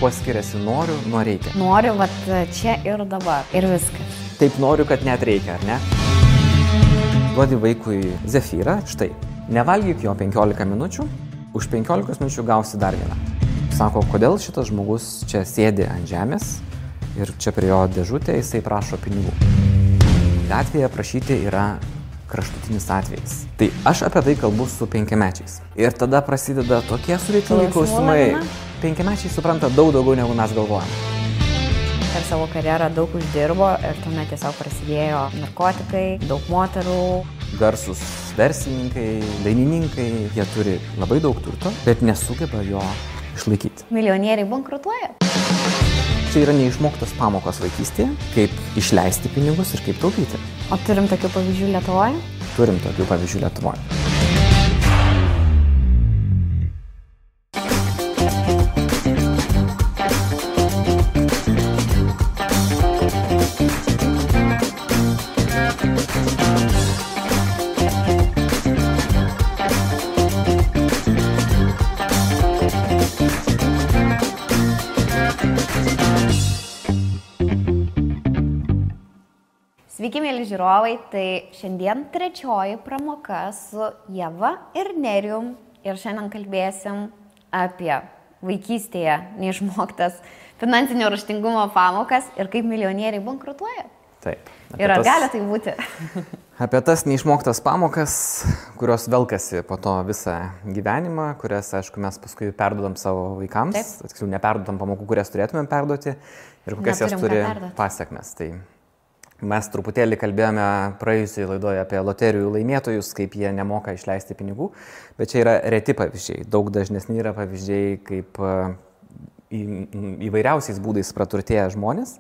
Kuo skiriasi noriu nuo reikia? Noriu, vat čia ir dabar. Ir viskas. Taip noriu, kad net reikia, ar ne? Duodi vaikui zefyrą, štai. Nevalgyk jo 15 minučių, už 15 minučių gausi dar vieną. Sako, kodėl šitas žmogus čia sėdi ant žemės ir čia prie jo dėžutė jisai prašo pinigų. Gatvėje prašyti yra kraštutinis atvejis. Tai aš apie tai kalbu su 5-mečiais. Ir tada prasideda tokie sudėtingi klausimai. 5-mečiai supranta daug daugiau negu mes galvojame. Per savo karjerą daug uždirbo ir tuomet tiesiog prasidėjo narkotikai, daug moterų. Garsus verslininkai, dainininkai, jie turi labai daug turto, bet nesugeba jo išlaikyti. Milijonieriai bankrutuoja. Čia yra neišmoktos pamokos vaikystėje, kaip išleisti pinigus ir kaip taupyti. O turim tokių pavyzdžių Lietuvoje? Turim tokių pavyzdžių Lietuvoje. Sveiki, mėly žiūrovai, tai šiandien trečioji pramoka su Ieva ir Nerijum ir šiandien kalbėsim apie vaikystėje neišmoktas finansinio raštingumo pamokas ir kaip milijonieriai bankrutuoja. Taip. Ir ar gali tai būti? Apie tas neišmoktas pamokas, kurios velkasi po to visą gyvenimą, kurias, aišku, mes paskui perduodam savo vaikams, tiksliau neperduodam pamokų, kurias turėtumėm perduoti ir kokias jas turi pasekmes. Tai mes truputėlį kalbėjome praėjusioje laidoje apie loterijų laimėtojus, kaip jie nemoka išleisti pinigų, bet čia yra reti pavyzdžiai. Daug dažnesni yra pavyzdžiai, kaip įvairiausiais būdais praturtėję žmonės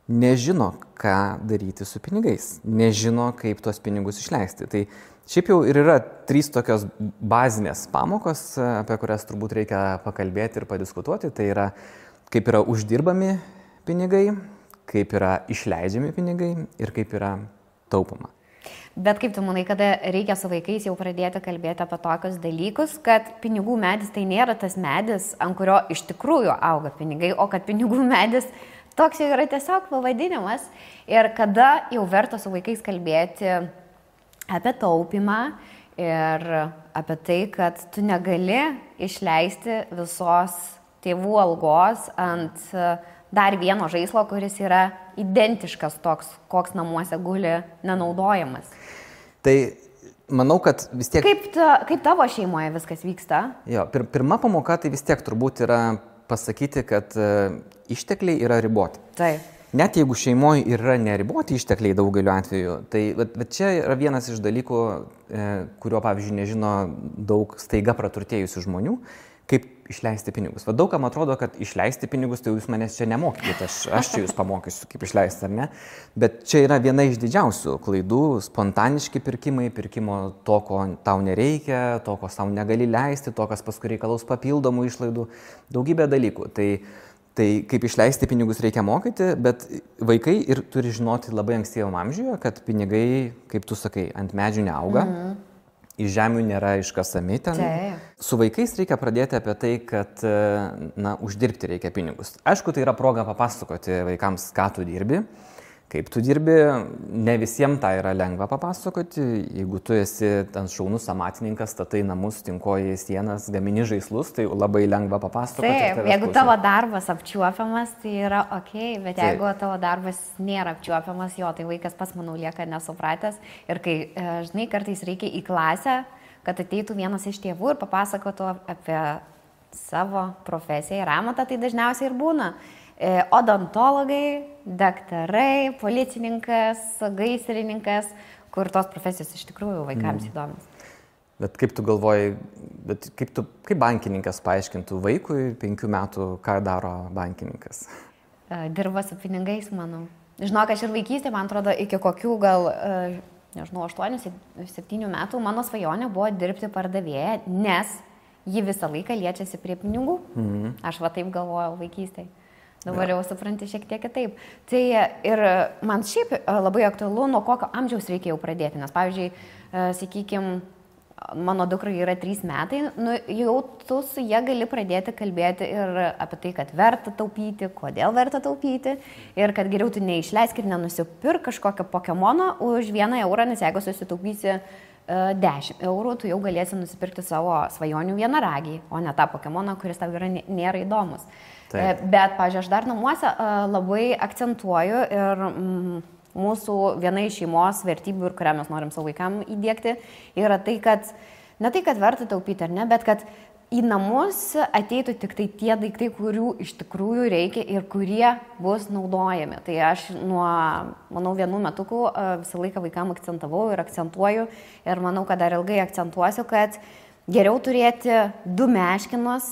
nežino, ką daryti su pinigais, nežino, kaip tuos pinigus išleisti. Tai šiaip jau ir yra 3 tokios bazinės pamokos, apie kurias turbūt reikia pakalbėti ir padiskutuoti. Tai yra, kaip yra uždirbami pinigai, kaip yra išleidžiami pinigai ir kaip yra taupoma. Bet kaip tu manai, kada reikia su vaikais jau pradėti kalbėti apie tokius dalykus, kad pinigų medis tai nėra tas medis, ant kurio iš tikrųjų auga pinigai, o kad pinigų medis toks jau yra tiesiog pavadinimas ir kada jau verta su vaikais kalbėti apie taupimą ir apie tai, kad tu negali išleisti visos tėvų algos ant dar vieno žaislo, kuris yra identiškas toks, koks namuose guli nenaudojamas. Tai manau, kad vis tiek... Kaip tavo šeimoje viskas vyksta? Jo, pirma pamoka tai vis tiek turbūt yra pasakyti, kad ištekliai yra riboti. Taip. Net jeigu šeimoje yra neriboti ištekliai daugeliu atveju, tai bet čia yra vienas iš dalykų, kurio, pavyzdžiui, nežino daug staiga praturtėjusių žmonių, kaip išleisti pinigus. Va daug kam atrodo, kad išleisti pinigus, tai jūs manęs čia nemokykite, aš čia jūs pamokysiu, kaip išleisti, ar ne? Bet čia yra viena iš didžiausių klaidų, spontaniški pirkimai, pirkimo to, ko tau nereikia, to, ko tau negali leisti, to, kas paskui reikalaus papildomų išlaidų, daugybė dalykų. Tai kaip išleisti pinigus reikia mokyti, bet vaikai ir turi žinoti labai ankstyvam amžiuje, kad pinigai, kaip tu sakai, ant medžių neauga. Iš žemių nėra iškasami ten. Su vaikais reikia pradėti apie tai, kad uždirbti reikia pinigus. Aišku, tai yra proga papasakoti vaikams, ką tu dirbi, kaip tu dirbi. Ne visiems tai yra lengva papasakoti. Jeigu tu esi ten šaunus amatininkas, statai namus, tinkoji sienas, gamini žaislus, tai labai lengva papasakoti. Taip, jeigu tavo darbas apčiuopiamas, tai yra ok, bet jeigu tavo darbas nėra apčiuopiamas, jo, tai vaikas pas, manau, lieka nesupratęs. Ir kai, žinai, kartais reikia į klasę, kad ateitų vienas iš tėvų ir papasakotų apie savo profesiją ir amatą, tai dažniausiai ir būna. Odontologai, daktarai, policininkas, gaisrininkas, kur tos profesijos iš tikrųjų vaikams įdomios. Bet kaip tu galvoji, kaip bankininkas paaiškintų vaikui 5 metų, ką daro bankininkas? Dirba su pinigais, manau. Žinok, aš ir vaikystė, man atrodo, iki kokių gal, nežinau, 8-7 metų mano svajonė buvo dirbti pardavėją, nes ji visą laiką liečiasi prie pinigų. Aš va taip galvojau vaikystėje. Dabar jau supranti šiek tiek kitaip. Tai ir man šiaip labai aktualu, nuo kokio amžiaus reikia jau pradėti. Nes, pavyzdžiui, sakykime, mano dukrai yra 3 metai, nu, jau tu su jie gali pradėti kalbėti ir apie tai, kad verta taupyti, kodėl verta taupyti ir kad geriau tu neišleisk ir nenusipirk kažkokio Pokemono už 1 eurą, nes jeigu susitaupysi 10 eurų, tu jau galėsi nusipirkti savo svajonių vienaragį, o ne tą Pokemoną, kuris tau nėra įdomus. Taip. Bet, pažiūrėjau, aš dar namuose labai akcentuoju ir mūsų viena iš šeimos vertybių, ir kurią mes norim savo vaikam įdėkti, yra tai, kad ne tai, kad verta taupyti ar ne, bet kad į namus ateitų tik tai tie daiktai, kurių iš tikrųjų reikia ir kurie bus naudojami. Tai aš manau, 1 metukų visą laiką vaikam akcentavau ir akcentuoju ir manau, kad dar ilgai akcentuosiu, kad geriau turėti 2 meškinus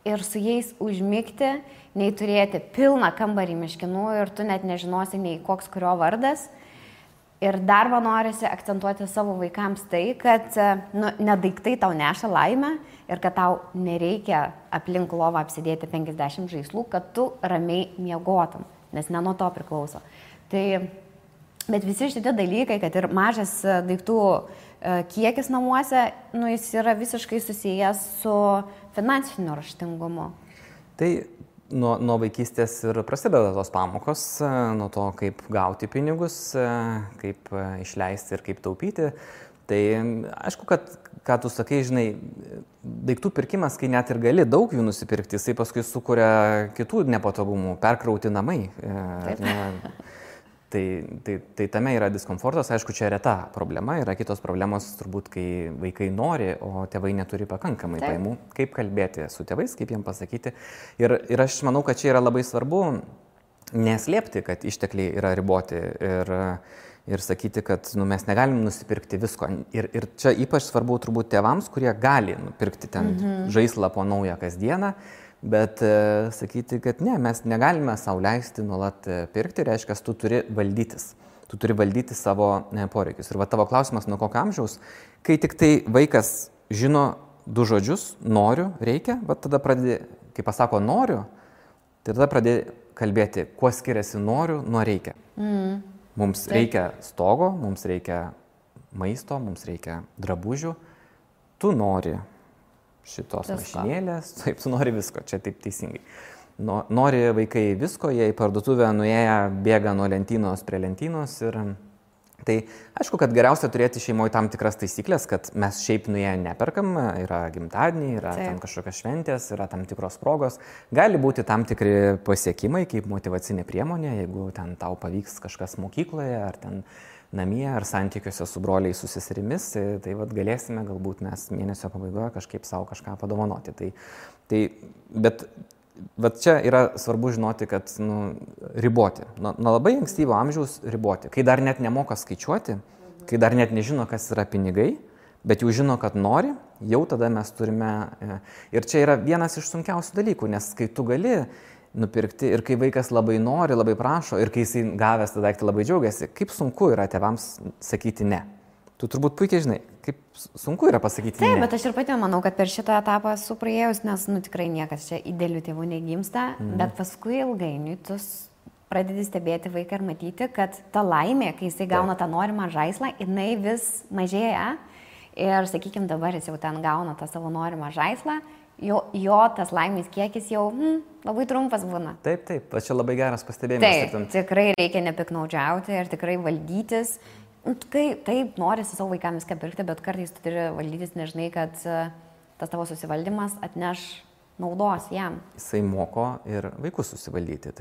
ir su jais užmigti, nei turėti pilną kambarį meškinų ir tu net nežinosi, nei koks kurio vardas. Ir dar man norisi akcentuoti savo vaikams tai, kad ne daiktai tau neša laimę ir kad tau nereikia aplink lovą apsidėti 50 žaislų, kad tu ramiai miegotum, nes ne nuo to priklauso. Bet visi šitie dalykai, kad ir mažas daiktų kiekis namuose, jis yra visiškai susijęs su finansiniu raštingumu. Tai nuo vaikystės ir prasideda tos pamokos, nuo to, kaip gauti pinigus, kaip išleisti ir kaip taupyti. Tai aišku, kad, ką tu sakai, žinai, daiktų pirkimas, kai net ir gali daug jų nusipirkti, jisai paskui sukuria kitų nepatogumų, perkrauti namai. Tai tame yra diskomfortas, aišku, čia reta problema, yra kitos problemos turbūt, kai vaikai nori, o tėvai neturi pakankamai pajamų, kaip kalbėti su tėvais, kaip jiem pasakyti. Ir aš manau, kad čia yra labai svarbu neslėpti, kad ištekliai yra riboti ir sakyti, kad mes negalim nusipirkti visko. Ir čia ypač svarbu turbūt tėvams, kurie gali nupirkti ten žaislą po naują kasdieną. Bet sakyti, kad ne, mes negalime sau leisti nuolat pirkti, reiškia, tu turi valdytis. Tu turi valdyti savo poreikius. Ir va tavo klausimas, nuo kokio amžiaus, kai tik tai vaikas žino 2 žodžius, noriu, reikia, va tada pradedi, kai pasako noriu, tai tada pradedi kalbėti, kuo skiriasi noriu nuo reikia. Mums reikia stogo, mums reikia maisto, mums reikia drabužių, tu nori šitos mašinėlės, taip, tu nori visko, čia taip teisingai. Nori vaikai visko, jie į parduotuvę nuėję bėga nuo lentynos prie lentynos ir tai aišku, kad geriausia turėti šeimoje tam tikras taisyklės, kad mes šiaip nuėję neperkam, yra gimtadieniai, yra tam kažkokios šventės, yra tam tikros progos, gali būti tam tikri pasiekimai kaip motyvacinė priemonė, jeigu ten tau pavyks kažkas mokykloje ar ten namie ar santykiuose su broliais, su seserimis, tai vat galėsime galbūt mes mėnesio pabaigoje kažkaip savo kažką padovanoti. Bet čia yra svarbu žinoti, kad riboti. Nuo labai ankstyvo amžiaus riboti. Kai dar net nemoka skaičiuoti, kai dar net nežino, kas yra pinigai, bet jau žino, kad nori, jau tada mes turime. Ir čia yra vienas iš sunkiausių dalykų, nes kai tu gali nupirkti ir kai vaikas labai nori, labai prašo ir kai jisai gavęs tą daiktą labai džiaugiasi, kaip sunku yra tėvams sakyti ne. Tu turbūt puikiai žinai, kaip sunku yra pasakyti ne. Taip, bet aš ir pati manau, kad per šitą etapą esu praėjus, nes tikrai niekas čia idealių tėvų negimsta, bet paskui ilgainiui tu pradedi stebėti vaiką ir matyti, kad ta laimė, kai jisai gauna tą norimą žaislą, jinai vis mažėja ir, sakykime, dabar jis jau ten gauna tą savo norimą žaislą, jo tas laimės kiekis jau labai trumpas būna. Taip, čia labai geras pastebėjimas. Taip, tikrai reikia nepiknaudžiauti ir tikrai valdytis. Taip, norisi savo vaikams viską pirkti, bet kartais tu turi valdytis, nežinai, kad tas tavo susivaldymas atneš naudos jam. Jisai moko ir vaikus susivaldyti.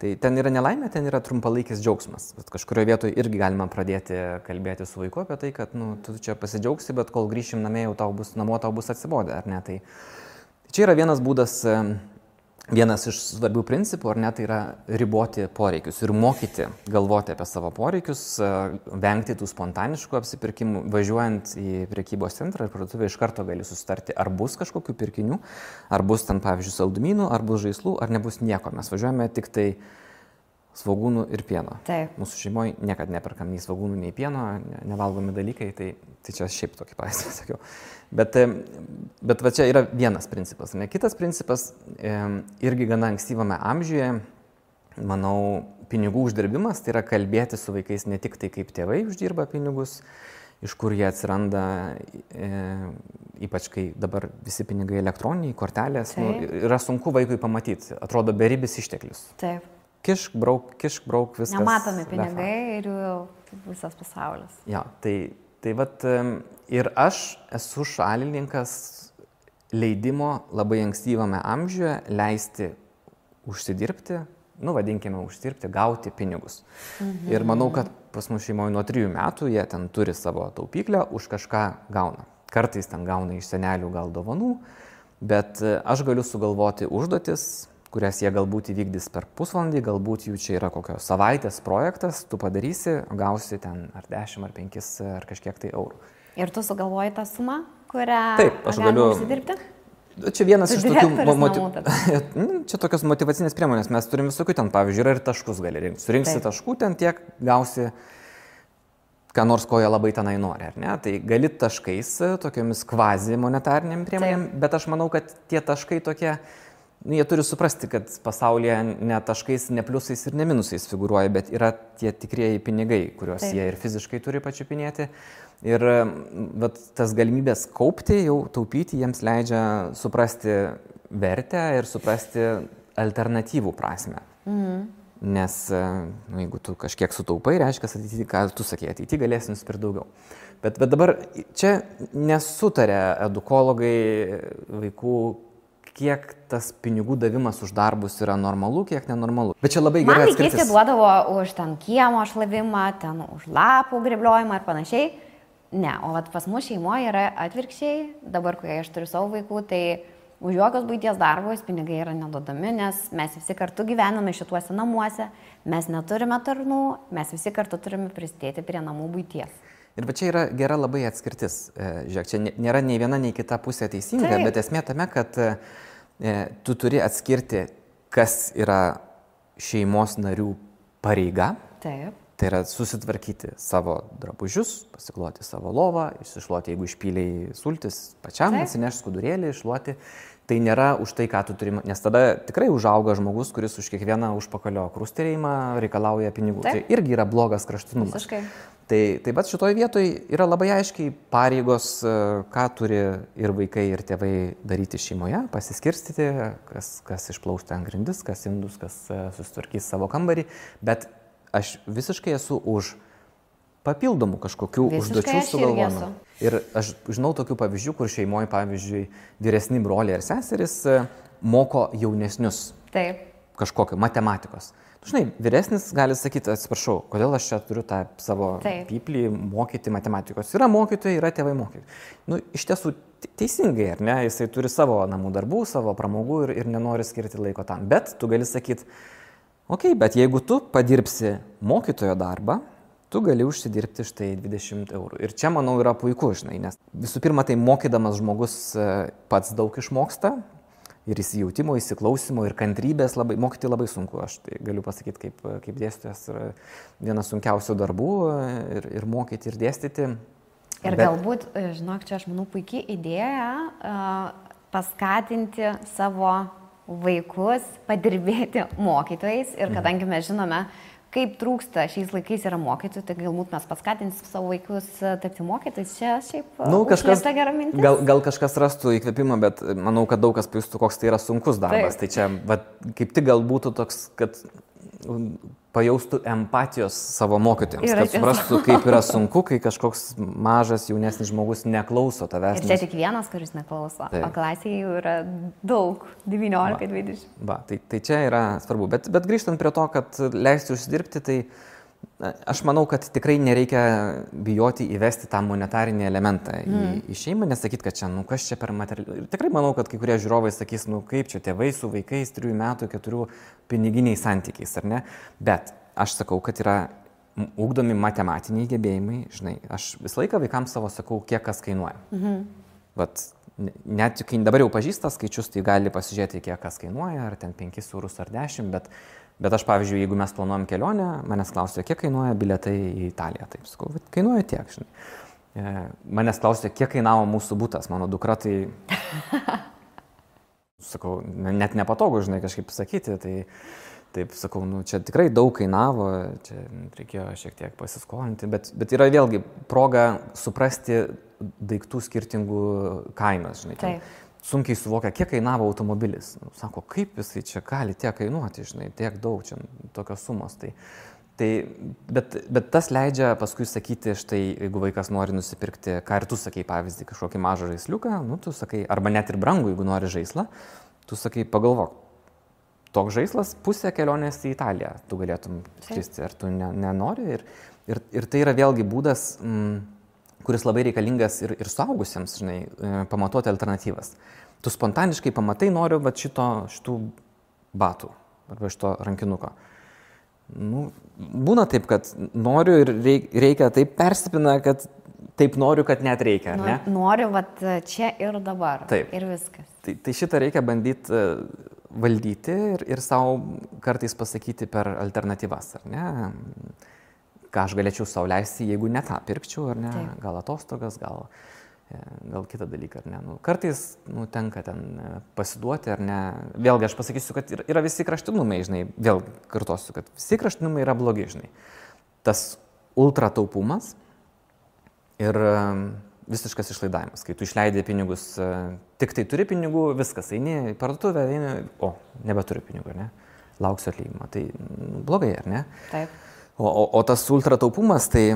Tai ten yra nelaimė, ten yra trumpalaikis džiaugsmas. Bet kažkurioje vietoje irgi galima pradėti kalbėti su vaiku apie tai, kad tu čia pasidžiaugsi, bet kol grįšim namo tau bus atsibodę, ar ne? Tai čia yra vienas būdas, vienas iš svarbių principų, ar ne, tai yra riboti poreikius ir mokyti galvoti apie savo poreikius, vengti tų spontaniškų apsipirkimų. Važiuojant į prekybos centrą ir parduotuvę iš karto gali susitarti, ar bus kažkokių pirkinių, ar bus ten, pavyzdžiui, saldumynų, ar bus žaislų, ar nebus nieko. Mes važiuojame tik tai svogūnų ir pieno. Taip. Mūsų šeimoje niekada neperkam nei svogūnų, nei pieno, nevalgomi dalykai, tai čia šiaip tokį pavyzdį sakiau. Bet va čia yra vienas principas. Ne? Kitas principas, irgi gana ankstyvame amžiuje, manau, pinigų uždirbimas, tai yra kalbėti su vaikais ne tik tai, kaip tėvai uždirba pinigus, iš kur jie atsiranda, ypač kai dabar visi pinigai elektroniniai, kortelės, yra sunku vaikui pamatyti, atrodo beribis išteklius. Taip. Kišk, brauk, viskas. Nematomi pinigai ir jų visas pasaulis. Ja, tai vat ir aš esu šalininkas leidimo labai ankstyvame amžiuje leisti užsidirbti, vadinkime uždirbti, gauti pinigus. Ir manau, kad pas mus šeimoje nuo 3 metų jie ten turi savo taupyklę, už kažką gauna. Kartais ten gauna iš senelių gal dovanų, bet aš galiu sugalvoti užduotis, kurias jie galbūt įvykdys per pusvalandį, galbūt jų čia yra kokios savaitės projektas, tu padarysi, gausi ten ar 10, ar 5, ar kažkiek tai eurų. Ir tu sugalvoji tą sumą, kurią aš galiu užsidirbti? Čia vienas iš tokių čia tokios motyvacinės priemonės, mes turim visokių ten, pavyzdžiui, yra ir taškus gali rinkti. Surinksi taškų, ten tiek gausi, ką nors ko jie labai tenai nori, ar ne? Tai gali taškais, tokiamis kvazi monetariniam priemonėm, bet aš manau, kad tie taškai tokie, jie turi suprasti, kad pasaulyje ne taškais, ne pliusais ir ne minusais figūruoja, bet yra tie tikrieji pinigai, kuriuos jie ir fiziškai turi pačiupinėti. Ir tas galimybės kaupti, jau taupyti, jiems leidžia suprasti vertę ir suprasti alternatyvų prasme. Nes jeigu tu kažkiek sutaupai, reiškia, ateityje, ką tu sakei, ateityje galėsi nusipirkti daugiau. Bet dabar čia nesutarė edukologai vaikų, kiek tas pinigų davimas už darbus yra normalu, kiek nenormalu. Bet čia labai gerai atskirtis. Man vaikystė duodavo už ten kiemo šlavimą, ten už lapų grebliojimą ir panašiai. Ne, o pas mus šeimoje yra atvirkščiai, dabar, kai aš turiu savo vaikų, tai už jokios buities darbus pinigai yra neduodami, nes mes visi kartu gyvename šituose namuose, mes neturime tarnų, mes visi kartu turime prisidėti prie namų buities. Ir va čia yra gera labai atskirtis. Žiūrėk, čia nėra nei viena, nei kita pusė teisinga, bet esmė tame, kad tu turi atskirti, kas yra šeimos narių pareiga. Taip. Tai yra susitvarkyti savo drabužius, pasikloti savo lovą, išsišluoti, jeigu išpyliai sultis, pačiam atsinešti skudurėlį, iššluoti. Tai nėra už tai, ką tu turi, nes tada tikrai užauga žmogus, kuris už kiekvieną užpakalio krustelėjimą reikalauja pinigų. Tai irgi yra blogas kraštutinumas. Visiškai. Tai bet šitoje vietoje yra labai aiškiai pareigos, ką turi ir vaikai, ir tėvai daryti šeimoje, pasiskirstyti, kas išplaus ten grindis, kas indus, kas susitvarkys savo kambarį, bet aš visiškai esu už papildomų kažkokių užduočių sugalvojimą. Ir aš žinau tokių pavyzdžių, kur šeimoje, pavyzdžiui, vyresni broliai ir seserys moko jaunesnius kažkokio matematikos. Žinai, vyresnis gali sakyti, atsiprašau, kodėl aš čia turiu tą savo pyplį mokyti matematikos. Yra mokytojai, yra tėvai mokyti. Iš tiesų teisingai, ar ne? Jisai turi savo namų darbų, savo pramogų ir nenori skirti laiko tam. Bet tu gali sakyti, bet jeigu tu padirbsi mokytojo darbą, tu gali užsidirbti štai 20 eurų. Ir čia, manau, yra puiku, žinai, nes visų pirma, tai mokydamas žmogus pats daug išmoksta ir įsijautimo, įsiklausimo ir kantrybės mokyti labai sunku. Aš tai galiu pasakyti, kaip dėstytojas yra vienas sunkiausių darbų ir mokyti ir dėstyti. Ir galbūt, žinok, čia aš manau puikiai idėja paskatinti savo vaikus padirbėti mokytojais ir kadangi mes žinome, kaip trūksta šiais laikais yra mokytojų, tai galbūt mes paskatinsim savo vaikus tapti mokytojais. Čia šiaip užslėpta gera mintis. Gal kažkas rastų įkvėpimą, bet manau, kad daug kas pajustų, koks tai yra sunkus darbas. Tai čia kaip tik gal būtų toks, kad pajaustų empatijos savo mokytojams, kad suprastų, kaip yra sunku, kai kažkoks mažas jaunesnis žmogus neklauso tavęs. Ir čia tik vienas, kuris neklauso, o klasėje jau yra daug, 19-20. Tai čia yra svarbu. Bet grįžtant prie to, kad leisti užsidirbti, tai aš manau, kad tikrai nereikia bijoti įvesti tą monetarinį elementą į šeimą, nesakyti, kad čia, kas čia per materialį. Ir tikrai manau, kad kai kurie žiūrovai sakys, kaip čia tėvai su vaikais 3 metų, 4 piniginiais santykiais, ar ne? Bet aš sakau, kad yra ugdomi matematiniai gebėjimai, žinai, aš visą laiką vaikams savo sakau, kiek kas kainuoja. Net kai dabar jau pažįsta skaičius, tai gali pasižiūrėti, kiek kas kainuoja, ar ten 5 eurus ar 10, bet aš, pavyzdžiui, jeigu mes planuojam kelionę, manęs klausia, kiek kainuoja bilietai į Italiją. Taip sakau, kainuoja tiek, žinai. Manęs klausia, kiek kainavo mūsų butas, mano dukra, tai sakau, net nepatogu, žinai, kažkaip sakyti, taip sakau, nu, čia tikrai daug kainavo, čia reikėjo šiek tiek pasiskolinti, bet yra vėlgi proga suprasti daiktų skirtingų kainas, žinai. Taip. Sunkiai suvokia, kiek kainavo automobilis. Sako, kaip jisai čia gali tiek kainuoti, žinai, tiek daug, čia tokios sumos. Bet tas leidžia paskui sakyti, štai, jeigu vaikas nori nusipirkti, ką ir tu sakai, pavyzdį, kažkokį mažą žaisliuką, nu, tu sakai, arba net ir brangų, jeigu nori žaislą, tu sakai, pagalvok, toks žaislas pusę kelionės į Italiją, tu galėtum skristi, ar tu nenori. Ir tai yra vėlgi būdas, kuris labai reikalingas ir suaugusiems, žinai, pamatuoti alternatyvas. Tu spontaniškai pamatai, noriu va šitų batų arba šito rankinuko. Nu, būna taip, kad noriu ir reikia taip persipina, kad taip noriu, kad net reikia, ar ne? Noriu vat čia ir dabar. Taip. Ir viskas. Tai šitą reikia bandyti valdyti ir savo kartais pasakyti per alternatyvas, ar ne? Ką aš galėčiau sau leisti, jeigu ne tą pirkčiau, ar ne? Taip. Gal atostogas, gal kitą dalyką, ar ne? Nu, kartais tenka ten pasiduoti, ar ne? Vėlgi aš pasakysiu, kad yra visi kraštinumai, žinai, vėl kartosiu, kad visi kraštinumai yra blogi, žinai. Tas ultra taupumas ir visiškas išlaidavimas, kai tu išleidai pinigus, tik tai turi pinigų, viskas, eini į parduotuvę, nebeturi pinigų, ar ne? Lauksiu atlyginimo, tai blogai, ar ne? Taip. O tas ultra taupumas, tai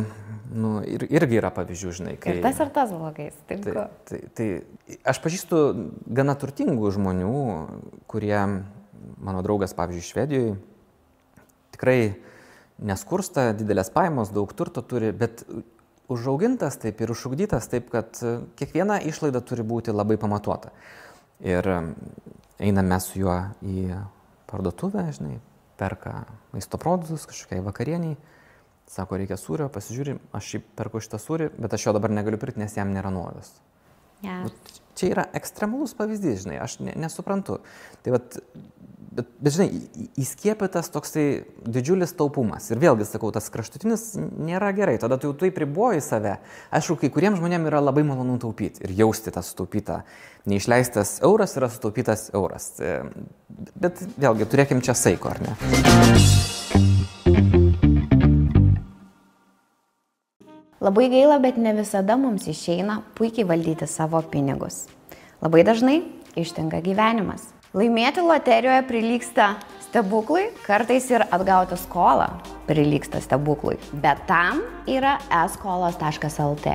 irgi yra pavyzdžių, žinai. Ir tas blogais. Tai aš pažįstu gana turtingų žmonių, kurie, mano draugas, pavyzdžiui, Švedijoje, tikrai neskursta, didelės pajamos, daug turto turi, bet užaugintas taip ir užugdytas taip, kad kiekviena išlaida turi būti labai pamatuota. Ir einame su juo į parduotuvę, žinai, perka maisto produktus kažkokiai vakarieniai, sako, reikia sūrio, pasižiūri, aš šį perku šitą sūrį, bet aš jo dabar negaliu pirkti, nes jam nėra nuolaidos. Yeah. Čia yra ekstremalus pavyzdys, žinai, aš nesuprantu. Tai bet žinai, įskiepytas toksai didžiulis taupumas. Ir vėlgi, sakau, tas kraštutinis nėra gerai, tada tu jau taip riboji save. Aišku, kai kuriems žmonėms yra labai malonu taupyti ir jausti tą sutaupytą. Neišleistas euras yra sutaupytas euras. Bet vėlgi, turėkim čia saiko, ar ne? Labai gaila, bet ne visada mums išeina puikiai valdyti savo pinigus. Labai dažnai ištinka gyvenimas. Laimėti loterijoje prilygsta stebuklui, kartais ir atgauti skolą prilygsta stebuklui. Bet tam yra eskolos.lt.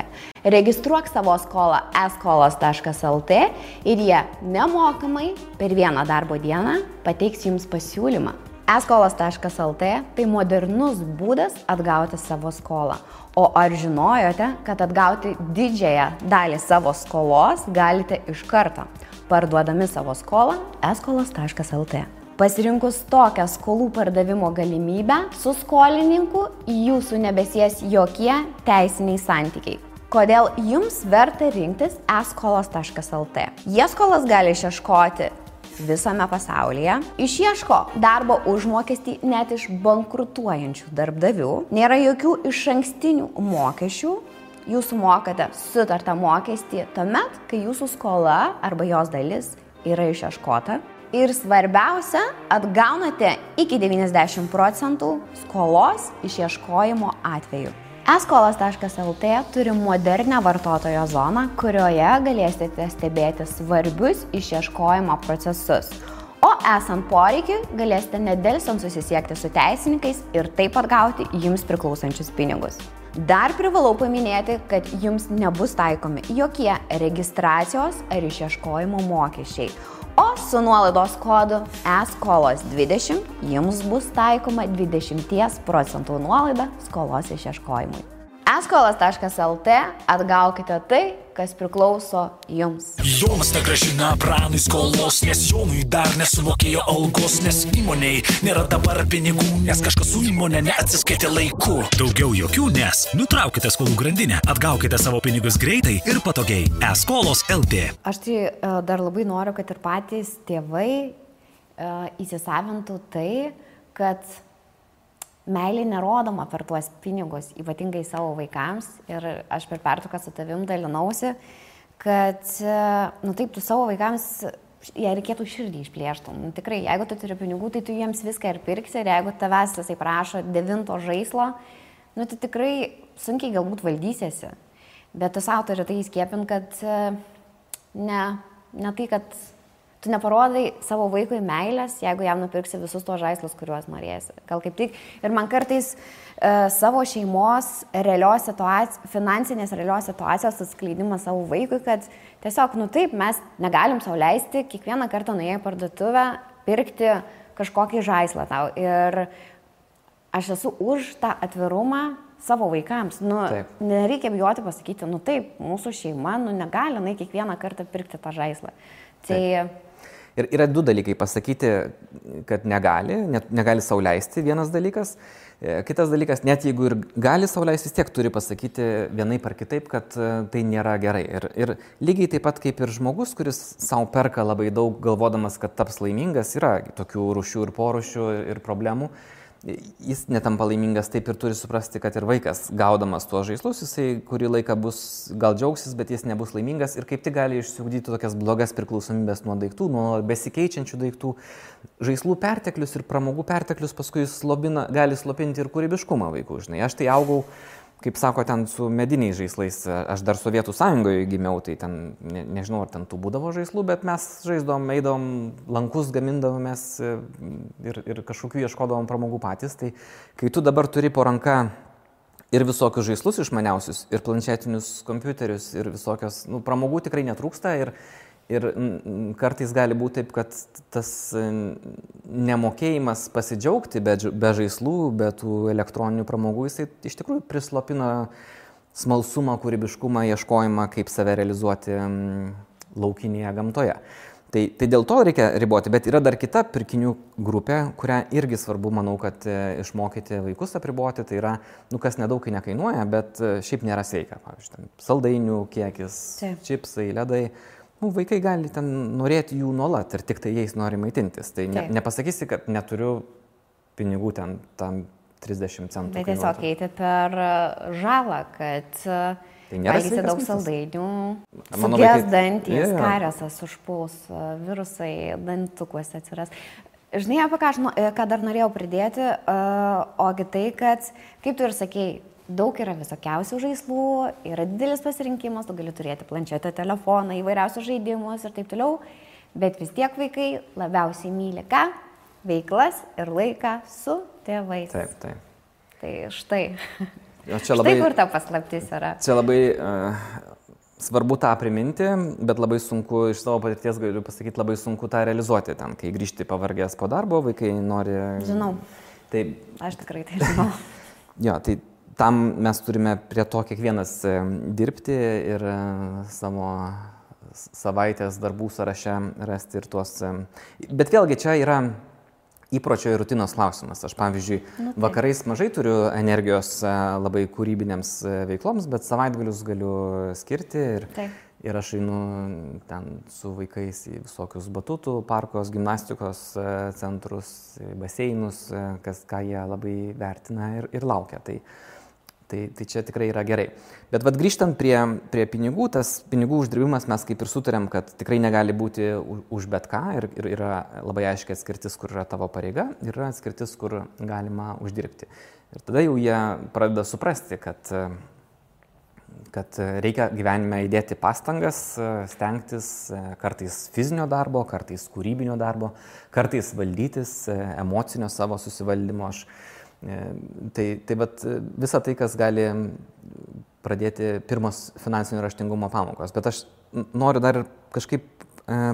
Registruok savo skolą eskolos.lt ir jie nemokamai per vieną darbo dieną pateiks jums pasiūlymą. Eskolos.lt tai modernus būdas atgauti savo skolą. O ar žinojote, kad atgauti didžiąją dalį savo skolos galite iš karto, parduodami savo skolą eskolos.lt. Pasirinkus tokią skolų pardavimo galimybę, su skolininku jūsų nebesies jokie teisiniai santykiai. Kodėl jums verta rinktis eskolos.lt? Jie skolas gali išieškoti visame pasaulyje, išieško darbo užmokestį net iš bankrutuojančių darbdavių, nėra jokių išankstinių mokesčių, jūs mokate sutartą mokestį tuomet, kai jūsų skola arba jos dalis yra išieškota. Ir svarbiausia, atgaunate iki 90% skolos išieškojimo atveju. Eskolos.lt turi modernę vartotojo zoną, kurioje galėsite stebėti svarbius išieškojimo procesus. O esant poreikiui, galėsite nedelsiant susisiekti su teisininkais ir taip atgauti jums priklausančius pinigus. Dar privalau paminėti, kad jums nebus taikomi jokie registracijos ar išieškojimo mokesčiai. O su nuolaidos kodu eskolos20 jums bus taikoma 20% nuolaida skolos išieškojimui. Eskolos.lt atgaukite tai, kas priklauso jums. Jonas negrąžina pranui skolos, nes Jonui dar nesumokėjo algos, nes įmonei nėra dabar pinigų, nes kažkas su įmonė neatsiskaitė laiku. Daugiau jokių, nes nutraukite skolų grandinę, atgaukite savo pinigus greitai ir patogiai. Eskolos.lt. Aš tai dar labai noriu, kad ir patys tėvai įsisavintų tai, kad meilė nerodoma per tuos pinigus, ypatingai savo vaikams. Ir aš per pertrauką su tavim dalinausi, kad, taip, tu savo vaikams jei reikėtų širdį išplėšti. Nu, tikrai, jeigu tu turi pinigų, tai tu jiems viską ir pirksi, ir jeigu tavęs jisai prašo 9 žaislo, nu, tai tikrai sunkiai galbūt valdysiesi. Bet tu savo turi tai įskiepint, kad ne tai, kad tu neparodai savo vaikui meilės, jeigu jam nupirksi visus tos žaislus, kuriuos norėsi. Gal kaip tik. Ir man kartais savo šeimos finansinės realios situacijos atskleidimas savo vaikui, kad tiesiog, nu taip, mes negalim sau leisti kiekvieną kartą nuėję į parduotuvę pirkti kažkokį žaislą tau. Ir aš esu už tą atvirumą savo vaikams. Nu, nereikia bijoti pasakyti, nu taip, mūsų šeima negali kiekvieną kartą pirkti tą žaislą. Tai... Ir yra 2 dalykai pasakyti, kad negali sau leisti, vienas dalykas. Kitas dalykas, net jeigu ir gali sau leisti, vis tiek turi pasakyti vienaip ar kitaip, kad tai nėra gerai. Ir lygiai taip pat kaip ir žmogus, kuris sau perka labai daug, galvodamas, kad taps laimingas, yra tokių rūšių ir porūšių ir problemų. Jis netampa laimingas, taip ir turi suprasti, kad ir vaikas, gaudamas tuos žaislus, jisai kurį laiką gal džiaugsis, bet jis nebus laimingas ir kaip tik gali išsiugdyti tokias blogas priklausomybės nuo daiktų, nuo besikeičiančių daiktų. Žaislų perteklius ir pramogų perteklius paskui gali slopinti ir kūrybiškumą vaikų. Žinai, aš tai augau, kaip sako, ten su mediniais žaislais. Aš dar Sovietų Sąjungoje gimiau, tai ten, nežinau, ar ten tų būdavo žaislų, bet mes žaisdavom, eidom, lankus gamindavomės ir kažkokių ieškodavom pramogų patys. Tai kai tu dabar turi po ranka ir visokius žaislus išmaniausius, ir planšetinius kompiuterius, ir visokios, pramogų tikrai netrūksta. Ir kartais gali būti taip, kad tas nemokėjimas pasidžiaugti be žaislų, be tų elektroninių pramogų, jisai iš tikrųjų prislopina smalsumą, kūrybiškumą, ieškojimą, kaip save realizuoti laukinėje gamtoje. Tai dėl to reikia riboti, bet yra dar kita pirkinių grupė, kurią irgi svarbu, manau, kad išmokyti vaikus apriboti. Tai yra, kas nedaug nekainuoja, bet šiaip nėra sveika. Pavyzdžiui, saldainių kiekis, čipsai, ledai. Vaikai gali ten norėti jų nuolat ir tik tai jais nori maitintis. Tai nepasakysi, kad neturiu pinigų ten tam 30 centų. Bet tiesiog eiti per žalą, kad valgyti daug saldainių, suges dantys, kariesas užpuls, virusai dantukuose atsiras. Žinai, apie ką dar norėjau pridėti, ogi tai, kad, kaip tu ir sakei, daug yra visokiausių žaislų, yra didelis pasirinkimas, tu gali turėti planšetę, telefoną, įvairiausius žaidimus ir taip toliau, bet vis tiek vaikai labiausiai myli ką? Veiklas ir laiką su tėvais. Taip. Tai štai. Štai kur ta paslaptis yra. Čia labai svarbu tą priminti, bet labai sunku, iš savo patirties galiu pasakyti, labai sunku tą realizuoti ten, kai grįžti pavargęs po darbo, vaikai nori... Žinau. Taip. Aš tikrai tai žinau. Jo, tai tam mes turime prie to kiekvienas dirbti ir savo savaitės darbų sąraše rasti ir tuos. Bet vėlgi čia yra įpročio ir rutinos klausimas. Aš, pavyzdžiui, vakarais mažai turiu energijos labai kūrybinėms veikloms, bet savaitgalius galiu skirti ir aš einu ten su vaikais į visokius batutų, parkos, gimnastikos centrus, baseinus, ką jie labai vertina ir laukia. Tai čia tikrai yra gerai. Bet grįžtant prie pinigų, tas pinigų uždirbimas mes kaip ir sutarėm, kad tikrai negali būti už bet ką ir yra labai aiškiai atskirtis, kur yra tavo pareiga ir yra atskirtis, kur galima uždirbti. Ir tada jau jie pradeda suprasti, kad reikia gyvenime įdėti pastangas, stengtis kartais fizinio darbo, kartais kūrybinio darbo, kartais valdytis emocinio savo susivaldymo. Tai visa tai, kas gali pradėti pirmos finansinio raštingumo pamokos. Bet aš noriu dar kažkaip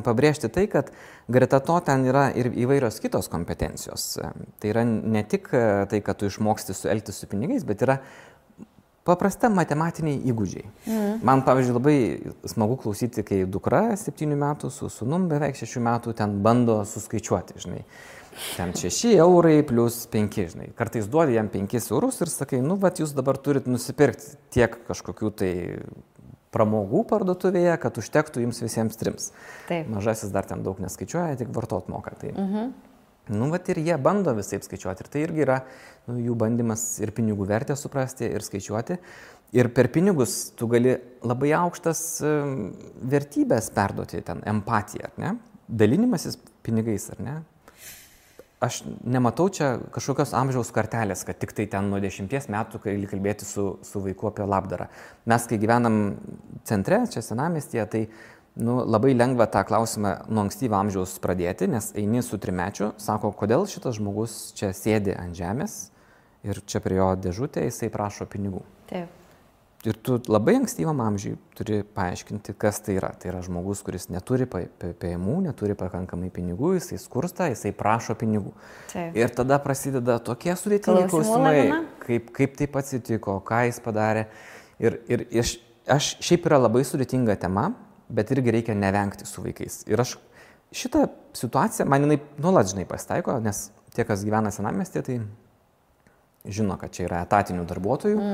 pabrėžti tai, kad greta to ten yra ir įvairios kitos kompetencijos. Tai yra ne tik tai, kad tu išmoksti elgtis su pinigais, bet yra paprasta matematiniai įgūdžiai. Man, pavyzdžiui, labai smagu klausyti, kai dukra 7 metų su sūnum beveik 6 metų ten bando suskaičiuoti, žinai. Ten 6 eurai plus 5, žinai. Kartais duodi jam 5 eurus ir sakai, jūs dabar turit nusipirkti tiek kažkokių tai pramogų parduotuvėje, kad užtektų jums visiems 3. Taip. Mažasis dar ten daug neskaičiuoja, tik vartot moka. Tai. Ir jie bando visaip skaičiuoti. Ir tai irgi yra jų bandymas ir pinigų vertę suprasti ir skaičiuoti. Ir per pinigus tu gali labai aukštas vertybės perduoti, ten empatiją, ne? dalinimasis pinigais, ar ne? Aš nematau čia kažkokios amžiaus kartelės, kad tik tai ten nuo 10 metų, kai kalbėti su vaiku apie labdarą. Mes, kai gyvenam centre, čia senamiestyje, tai labai lengva tą klausimą nuo ankstyvo amžiaus pradėti, nes eini su 3-mečiu, sako, kodėl šitas žmogus čia sėdi ant žemės ir čia prie jo dėžutė jisai prašo pinigų. Taip. Ir tu labai ankstyvam amžiui turi paaiškinti, kas tai yra. Tai yra žmogus, kuris neturi pajamų, neturi pakankamai pinigų, jisai skursta, jisai prašo pinigų. Taip. Ir tada prasideda tokie sudėtingi klausimai, kaip taip atsitiko, ką jis padarė. Ir aš šiaip yra labai sudėtinga tema, bet irgi reikia nevengti su vaikais. Ir aš šitą situaciją, man jinai nuolat žinai pasitaiko, nes tie, kas gyvena senamiestyje, tai žino, kad čia yra etatinių darbuotojų.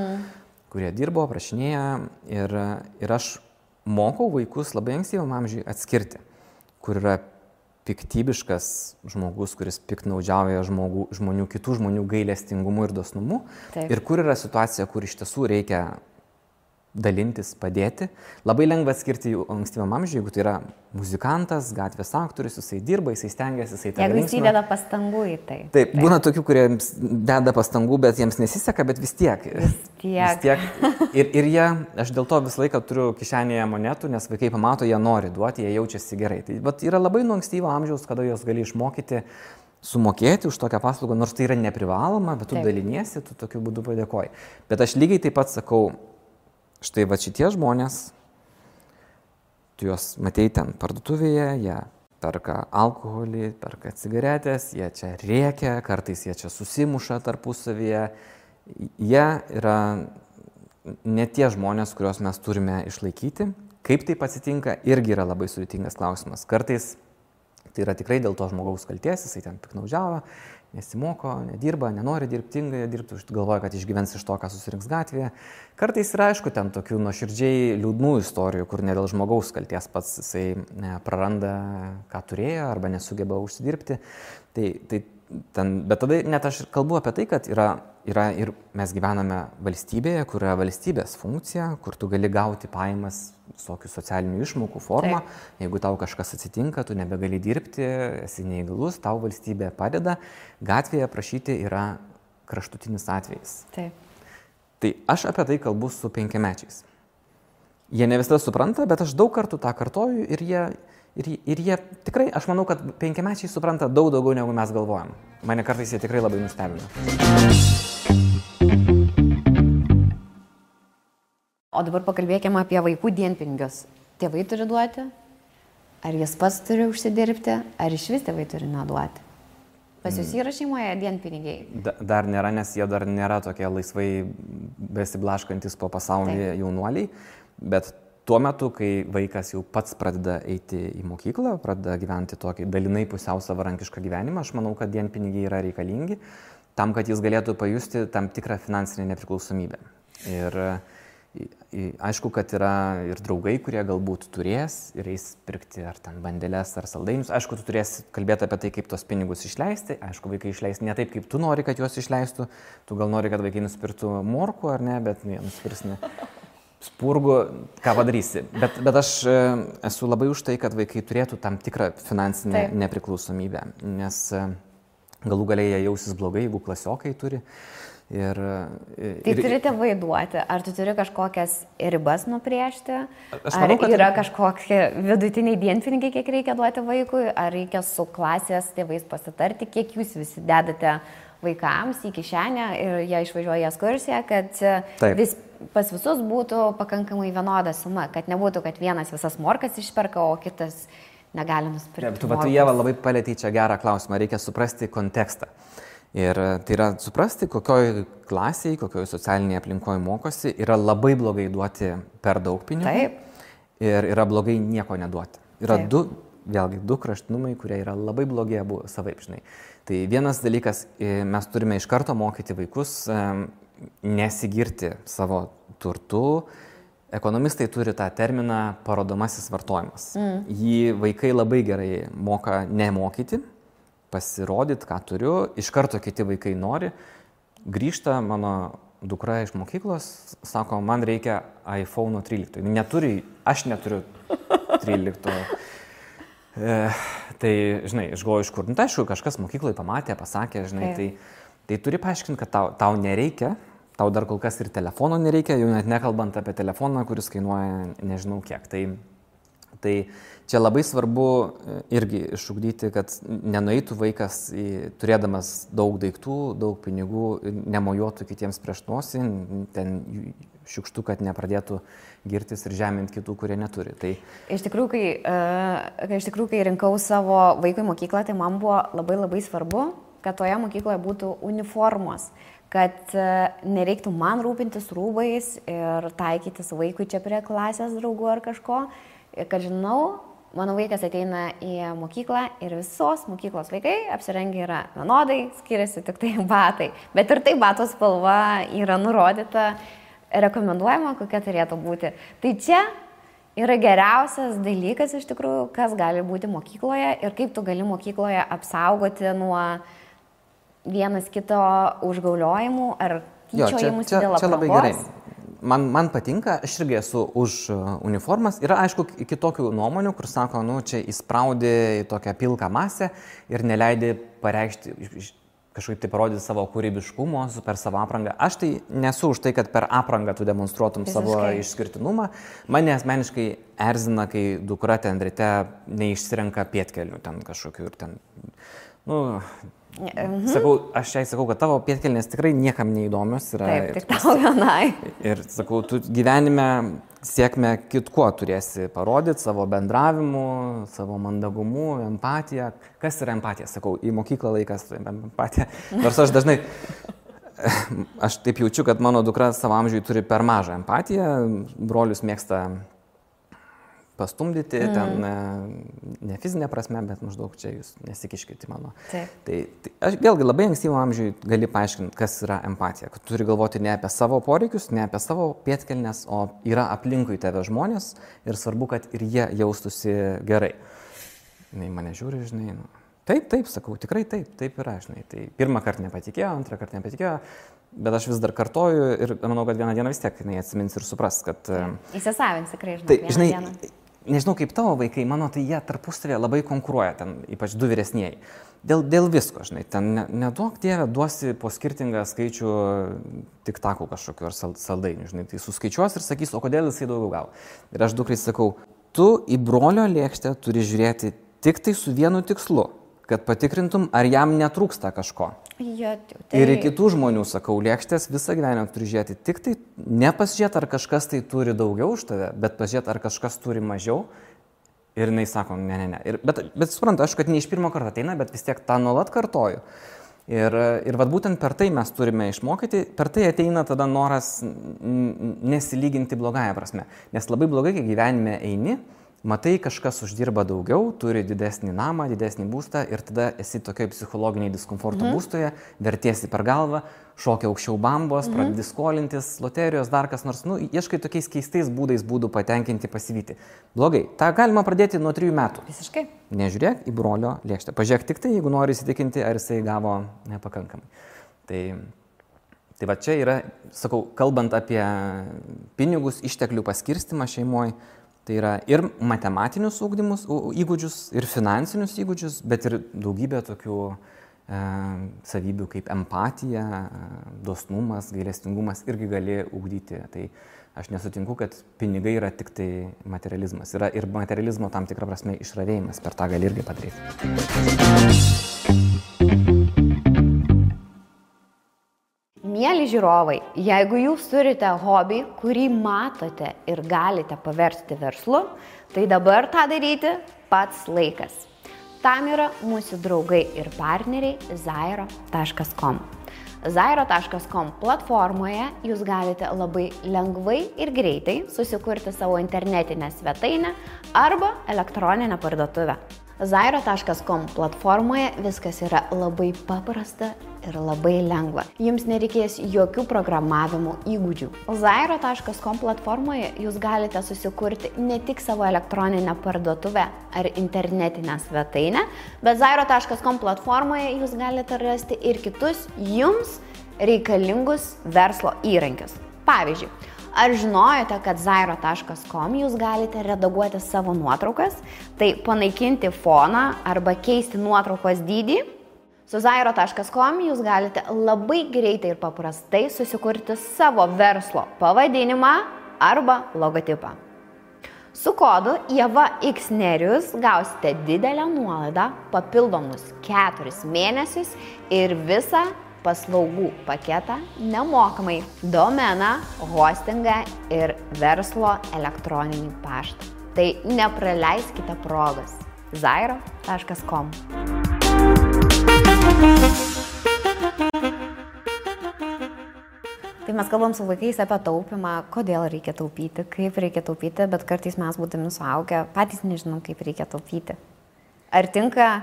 Kurie dirbo, prašinėja ir aš mokau vaikus labai ankstyvam amžiui atskirti, kur yra piktybiškas žmogus, kuris piktnaudžiauja žmonių, kitų žmonių gailestingumu ir dosnumu. Taip. Ir kur yra situacija, kur iš tiesų reikia dalintis, padėti. Labai lengva atskirti jų ankstyvam amžiui, jeigu tai yra muzikantas, gatvės aktorius, jisai dirba, jisai stengiasi, jisai tą linksmina. Jeigu jis įdeda pastangų į tai. Taip, būna tokių, kurie deda pastangų, bet jiems nesiseka, bet vis tiek. Ir jie, aš dėl to visą laiką turiu kišenėje monetų, nes vaikai pamato, jie nori duoti, jie jaučiasi gerai. Tai yra labai nuo ankstyvo amžiaus, kada jos gali išmokyti sumokėti už tokią paslaugą, nors tai yra neprivaloma, bet tu daliniesi, tu tokiu būdu padėkoji. Bet aš lygiai taip pat sakau, štai va šitie žmonės, tu juos matei ten parduotuvėje, jie perka alkoholį, perka cigaretės, jie čia rėkia, kartais jie čia susimuša tarpusavyje. Jie yra ne tie žmonės, kuriuos mes turime išlaikyti. Kaip taip atsitinka, irgi yra labai sudėtingas klausimas. Kartais tai yra tikrai dėl to žmogaus kaltės, jisai ten piktnaudžiavo, nesimoko, nedirba, nenori dirbti, galvoja, kad išgyvens iš to, ką susirinks gatvėje. Kartais yra, aišku, ten tokių nuoširdžiai liūdnų istorijų, kur ne dėl žmogaus kalties pats jisai praranda, ką turėjo, arba nesugeba užsidirbti. Bet tada net aš kalbu apie tai, kad yra ir mes gyvename valstybėje, kur yra valstybės funkcija, kur tu gali gauti pajamas visokių socialinių išmokų formą. Taip. Jeigu tau kažkas atsitinka, tu nebegali dirbti, esi neįgalus, tau valstybė padeda. Gatvėje prašyti yra kraštutinis atvejis. Taip. Tai aš apie tai kalbu su 5-mečiais. Jie ne visada supranta, bet aš daug kartų tą kartoju ir jie tikrai, aš manau, kad 5-mečiai supranta daug daugiau, negu mes galvojam. Mane kartais jie tikrai labai nustebina. O dabar pakalbėkime apie vaikų dienpinigius. Tėvai turi duoti? Ar jis pats turi užsidirbti? Ar iš vis tėvai turi neduoti? Pas jūs yra šeimoje dienpinigiai? Dar nėra, nes jie dar nėra tokie laisvai besiblaškantis po pasaulį jaunuoliai. Bet tuo metu, kai vaikas jau pats pradeda eiti į mokyklą, pradeda gyventi tokį dalinai pusiau savarankišką gyvenimą, aš manau, kad dienpinigiai yra reikalingi tam, kad jis galėtų pajusti tam tikrą finansinę nepriklausomybę. Ir aišku, kad yra ir draugai, kurie galbūt turės ir eis pirkti ar ten bandeles ar saldainius. Aišku, tu turėsi kalbėti apie tai, kaip tos pinigus išleisti. Aišku, vaikai išleis ne taip, kaip tu nori, kad juos išleistų. Tu gal nori, kad vaikai nusipirktų morkų ar ne, bet jie nusipirks ne spurgų, ką padarysi. Bet aš esu labai už tai, kad vaikai turėtų tam tikrą finansinę nepriklausomybę, nes galų galiai jie jausis blogai, jeigu klasiokai turi. Tai turi tėvai duoti. Ar tu turi kažkokias ribas nubrėžti? Ar yra kažkokie vidutiniai dienpinigiai, kiek reikia duoti vaikui? Ar reikia su klasės tėvais pasitarti, kiek jūs visi dedate vaikams į kišenę ir jie išvažiuoja į ekskursiją, kad pas visus būtų pakankamai vienoda suma, kad nebūtų, kad vienas visas morkas išperka, o kitas negali nusipirkti. Tu Ieva labai palėtei čia gerą klausimą, reikia suprasti kontekstą. Ir tai yra suprasti, kokioj klasėje, kokioj socialinėje aplinkoje mokosi, yra labai blogai duoti per daug pinigų. Taip. Ir yra blogai nieko neduoti. Yra du kraštinumai, kurie yra labai blogi abu savaip, žinai. Tai vienas dalykas, mes turime iš karto mokyti vaikus nesigirti savo turtu. Ekonomistai turi tą terminą parodomasis vartojimas. Jį vaikai labai gerai moka nemokyti, pasirodyti, ką turiu, iš karto kiti vaikai nori. Grįžta mano dukra iš mokyklos, sako, man reikia iPhone 13. Aš neturiu 13. Tai, žinai, aš galvoju, iš kur, tai aišku, kažkas mokykloje pamatė, pasakė, žinai, tai turi paaiškinti, kad tau nereikia, tau dar kol kas ir telefono nereikia, jau net nekalbant apie telefoną, kuris kainuoja nežinau kiek. Tai čia labai svarbu irgi išugdyti, kad nenueitų vaikas, turėdamas daug daiktų, daug pinigų, nemojuotų kitiems prieš nosį, ten šiukštų, kad nepradėtų girtis ir žeminti kitų, kurie neturi. Tai... Iš tikrųjų, kai rinkau savo vaikui mokyklą, tai man buvo labai svarbu, kad toje mokykloje būtų uniformos, kad nereiktų man rūpintis rūbais ir taikytis vaikui čia prie klasės draugų ar kažko. Kad žinau, mano vaikas ateina į mokyklą ir visos mokyklos vaikai apsirengia yra vienodai, skiriasi tik tai batai. Bet ir tai bato spalva yra nurodyta, rekomenduojama, kokia turėtų būti. Tai čia yra geriausias dalykas iš tikrųjų, kas gali būti mokykloje ir kaip tu gali mokykloje apsaugoti nuo vienas kito užgauliojimų ar tyčiojimus dėl aprangos. Čia labai gerai. Man patinka, aš irgi esu už uniformas. Yra, aišku, kitokių nuomonių, kur sako, čia įspraudi į tokią pilką masę ir neleidi pareikšti, kažkaip tai parodyti savo kūrybiškumo per savo aprangą. Aš tai nesu už tai, kad per aprangą tu demonstruotum savo išskirtinumą. Mane asmeniškai erzina, kai dukra ten ryte neišsirenka pėdkelnių ten kažkokių ir ten, aš jai sakau, kad tavo pėdkelnės tikrai niekam neįdomios yra. Taip, tik tau vienai. Ir sakau, tu gyvenime sėkmę kitkuo turėsi parodyti, savo bendravimu, savo mandagumu, empatiją. Kas yra empatija? Sakau, į mokyklą laikas empatija. Nors aš dažnai, aš taip jaučiu, kad mano dukra savo amžiui turi per mažą empatiją, brolius mėgsta pastumdyti, ten ne fizinė prasme, bet maždaug čia jūs nesikiškite mano. Tai aš vėlgi labai ankstyvo amžiui gali paaiškinti, kas yra empatija. Kad turi galvoti ne apie savo poreikius, ne apie savo pėdkelnes, o yra aplinkui tave žmonės ir svarbu, kad ir jie jaustųsi gerai. Jis mane žiūri, žinai, taip, sakau, tikrai taip yra, žinai. Tai pirmą kartą nepatikėjo, antrą kartą nepatikėjo, bet aš vis dar kartoju ir manau, kad vieną dieną vis tiek jinai atsimins ir supras, kad... Įsisavins tikrai, žinai, nežinau kaip tavo vaikai, mano, tai jie tarpusavėje labai konkuruoja, ten ypač du vyresnieji. Dėl visko, žinai, ten neduok Dieve, duosi po skirtingą skaičių tiktakų kažkokiu ar saldainių, žinai, tai suskaičiuos ir sakys, o kodėl jisai daugiau gavo. Ir aš dukrai sakau, tu į brolio lėkštę turi žiūrėti tik tai su vienu tikslu, kad patikrintum, ar jam netrūksta kažko. Ir į kitų žmonių, sakau, lėkštės visą gyvenimą turi žiūrėti tik tai, nepasižiūrėti, ar kažkas tai turi daugiau už tave, bet pasižiūrėti, ar kažkas turi mažiau. Ir jinai sako, ne. Bet suprantu, aš, kad ne iš pirmo karto ateina, bet vis tiek tą nuolat kartoju. Ir vat būtent per tai mes turime išmokyti, per tai ateina tada noras nesilyginti blogąją prasme. Nes labai blogai, kai gyvenime eini, matai, kažkas uždirba daugiau, turi didesnį namą, didesnį būstą ir tada esi tokioj psichologiniai diskomforto būstoje, vertiesi per galvą, šokia aukščiau bambos, pradedi skolintis, loterijos, dar kas nors, ieškai tokiais keistais būdų patenkinti, pasivyti. Blogai, tą galima pradėti nuo 3 metų. Visiškai. Nežiūrėk į brolio lėkštę. Pažiūrėk tik tai, jeigu nori įsitikinti, ar jisai gavo nepakankamai. Tai va čia yra, sakau, kalbant apie pinigus, išteklių paskirstimą šeimoje, tai yra ir matematinius įgūdžius, ir finansinius įgūdžius, bet ir daugybė tokių savybių kaip empatija, dosnumas, gailestingumas irgi gali ugdyti. Tai aš nesutinku, kad pinigai yra tik tai materializmas. Yra ir materializmo tam tikrą prasme išravėjimas, per tą gali irgi padaryti. Mieli žiūrovai, jeigu jūs turite hobį, kurį matote ir galite paversti verslu, tai dabar tą daryti pats laikas. Tam yra mūsų draugai ir partneriai zairo.com. Zairo.com platformoje jūs galite labai lengvai ir greitai susikurti savo internetinę svetainę arba elektroninę parduotuvę. Zairo.com platformoje viskas yra labai paprasta ir labai lengva. Jums nereikės jokių programavimo įgūdžių. Zairo.com platformoje jūs galite susikurti ne tik savo elektroninę parduotuvę ar internetinę svetainę, bet Zairo.com platformoje jūs galite rasti ir kitus jums reikalingus verslo įrankius. Pavyzdžiui, Ar žinojote, kad zairo.com jūs galite redaguoti savo nuotraukas, tai panaikinti foną arba keisti nuotraukos dydį? Su zairo.com jūs galite labai greitai ir paprastai susikurti savo verslo pavadinimą arba logotipą. Su kodu IEVAXNERIUS gausite didelę nuolaidą, papildomus 4 mėnesius ir visą paslaugų paketą nemokamai – domeną, hostingą ir verslo elektroninį paštą. Tai nepraleiskite progos. zairo.com. Tai mes kalbam su vaikais apie taupimą, kodėl reikia taupyti, kaip reikia taupyti, bet kartais mes būdami suaugę patys nežinom, kaip reikia taupyti. Ar tinka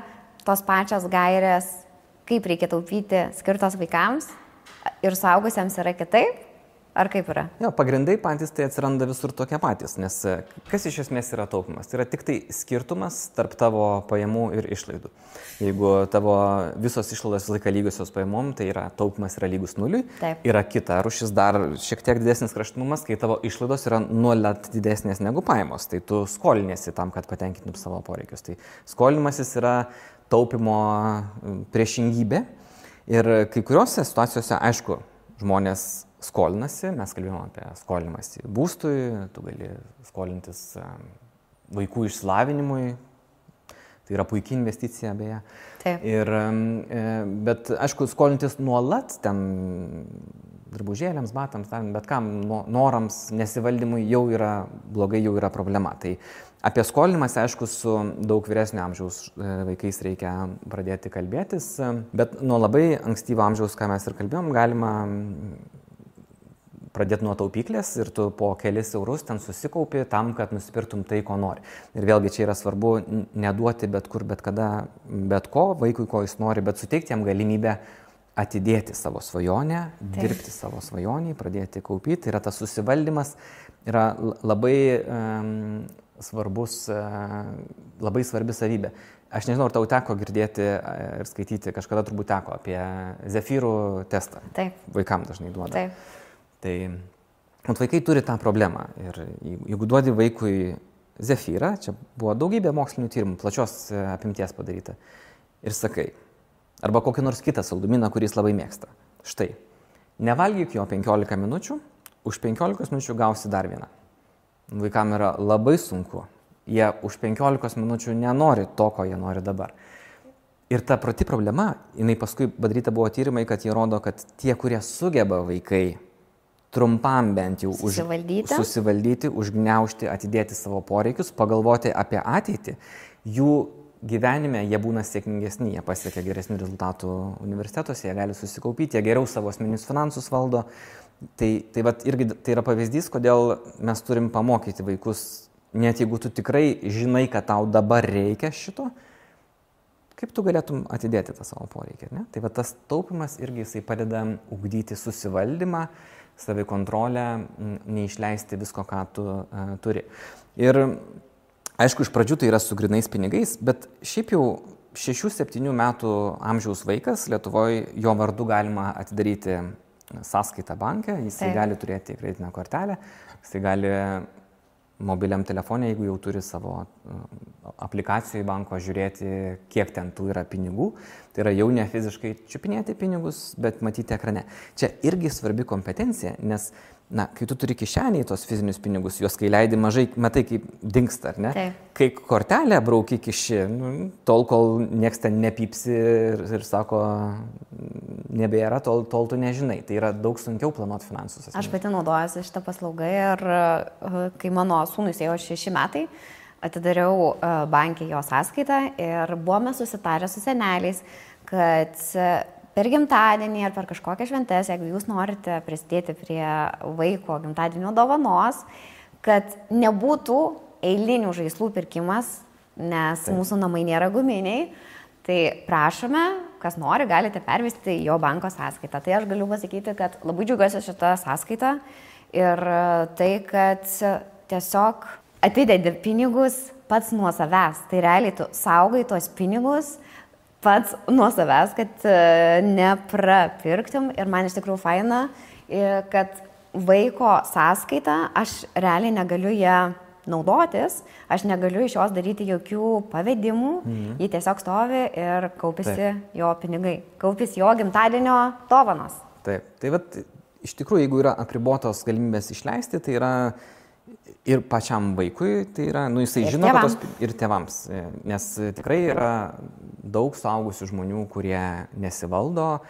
tos pačios gairės, kaip reikia taupyti, skirtos vaikams ir suaugusiems yra kitaip? Ar kaip yra? Jo, pagrindai patys tai atsiranda visur tokie patys, nes kas iš esmės yra taupimas? Tai yra tik tai skirtumas tarp tavo pajamų ir išlaidų. Jeigu tavo visos išlaidos visą laiką lygiosios pajamom, tai yra taupimas yra lygus nuliui. Taip. Yra kita rūšis dar šiek tiek didesnis kraštutinumas, kai tavo išlaidos yra nuolat didesnės negu pajamos. Tai tu skoliniesi tam, kad patenkintum savo poreikius. Tai skolinimasis yra taupimo priešingybė. Ir kai kuriuose situacijose, aišku, žmonės skolinasi, mes kalbėjome apie skolinimąsi būstui, tu gali skolintis vaikų išsilavinimui, tai yra puikia investicija beje. Taip. Bet aišku, skolintis nuolat, ten drabužėliams, batams, bet kam norams, nesivaldymui jau yra blogai, jau yra problema. Tai apie skolinimąsi, aišku, su daug vyresnio amžiaus vaikais reikia pradėti kalbėtis, bet nuo labai ankstyvo amžiaus, ką mes ir kalbėjom, galima pradėti nuo taupyklės ir tu po kelis eurus ten susikaupi tam, kad nusipirktum tai, ko nori. Ir vėlgi čia yra svarbu neduoti bet kur, bet kada, bet ko, vaikui, ko jis nori, bet suteikti jam galimybę atidėti savo svajonę, dirbti savo svajonį, pradėti kaupyti. Tai yra tas susivaldymas, yra labai labai svarbi savybė. Aš nežinau, ar tau teko girdėti ir skaityti, kažkada turbūt teko apie Zefyrų testą. Taip. Vaikam dažnai duoda. Taip. Tai vaikai turi tą problemą ir jeigu duodi vaikui Zefyrą, čia buvo daugybė mokslinių tyrimų, plačios apimties padaryta, ir sakai, arba kokį nors kitą saldumyną, kurį jis labai mėgsta. Štai, nevalgyk jo 15 minučių, už 15 minučių gausi dar vieną. Vaikam yra labai sunku, jie už 15 minučių nenori to, ko jie nori dabar. Ir ta pati problema, jinai paskui padaryta buvo tyrimai, kad jie rodo, kad tie, kurie sugeba vaikai trumpam bent jau susivaldyti, užgniaužti, atidėti savo poreikius, pagalvoti apie ateitį, jų gyvenime jie būna sėkmingesni, jie pasiekia geresnių rezultatų universitetuose, jie gali susikaupyti, jie geriau savo asmeninius finansus valdo. Tai vat irgi tai yra pavyzdys, kodėl mes turim pamokyti vaikus, net jeigu tu tikrai žinai, kad tau dabar reikia šito, kaip tu galėtum atidėti tą savo poreikį, ne? Tai va tas taupimas irgi jisai padeda ugdyti susivaldymą, savikontrolę, neišleisti visko, ką tu turi. Ir aišku, iš pradžių tai yra su grynais pinigais, bet šiaip jau 6-7 metų amžiaus vaikas Lietuvoje, jo vardu galima atidaryti sąskaitą banke, jisai gali turėti kreditinę kortelę, jisai gali mobiliam telefone, jeigu jau turi savo aplikacijoje banko, žiūrėti, kiek ten tų yra pinigų. Tai yra jau ne fiziškai čiupinėti pinigus, bet matyti ekrane. Čia irgi svarbi kompetencija, nes kai tu turi kišenėje tos fizinius pinigus, juos kai leidi mažai, matai, kaip dingsta, ar ne? Taip. Kai kortelę brauki kiši, tol, kol nieks ten nepypsi ir sako, nebėra, tol tu nežinai. Tai yra daug sunkiau planuoti finansus. Aš pati naudojuosi šitą paslaugą ir kai mano sūnus ėjo 6 metai, atidariau bankį jo sąskaitą ir buvome susitarę su seneliais, kad per gimtadienį ar per kažkokią šventės, jeigu jūs norite prisidėti prie vaiko gimtadienio dovanos, kad nebūtų eilinių žaislų pirkimas, nes mūsų namai nėra guminiai, tai prašome, kas nori, galite pervesti jo banko sąskaitą. Tai aš galiu pasakyti, kad labai džiaugiuosi šitą sąskaitą ir tai, kad tiesiog atidedi pinigus pats nuo savęs. Tai realiai tu saugai tos pinigus pats nuo savęs, kad neprapirktum. Ir man iš tikrųjų faina, kad vaiko sąskaita, aš realiai negaliu ją naudotis, aš negaliu iš jos daryti jokių pavedimų, ji tiesiog stovi ir kaupėsi jo pinigai, kaupėsi jo gimtadienio dovanos. Taip, tai vat, iš tikrųjų, jeigu yra apribotos galimybės išleisti, tai yra ir pačiam vaikui, tai yra, jisai ir žino, tėvam. ir tėvams, nes tikrai yra daug suaugusių žmonių, kurie nesivaldo,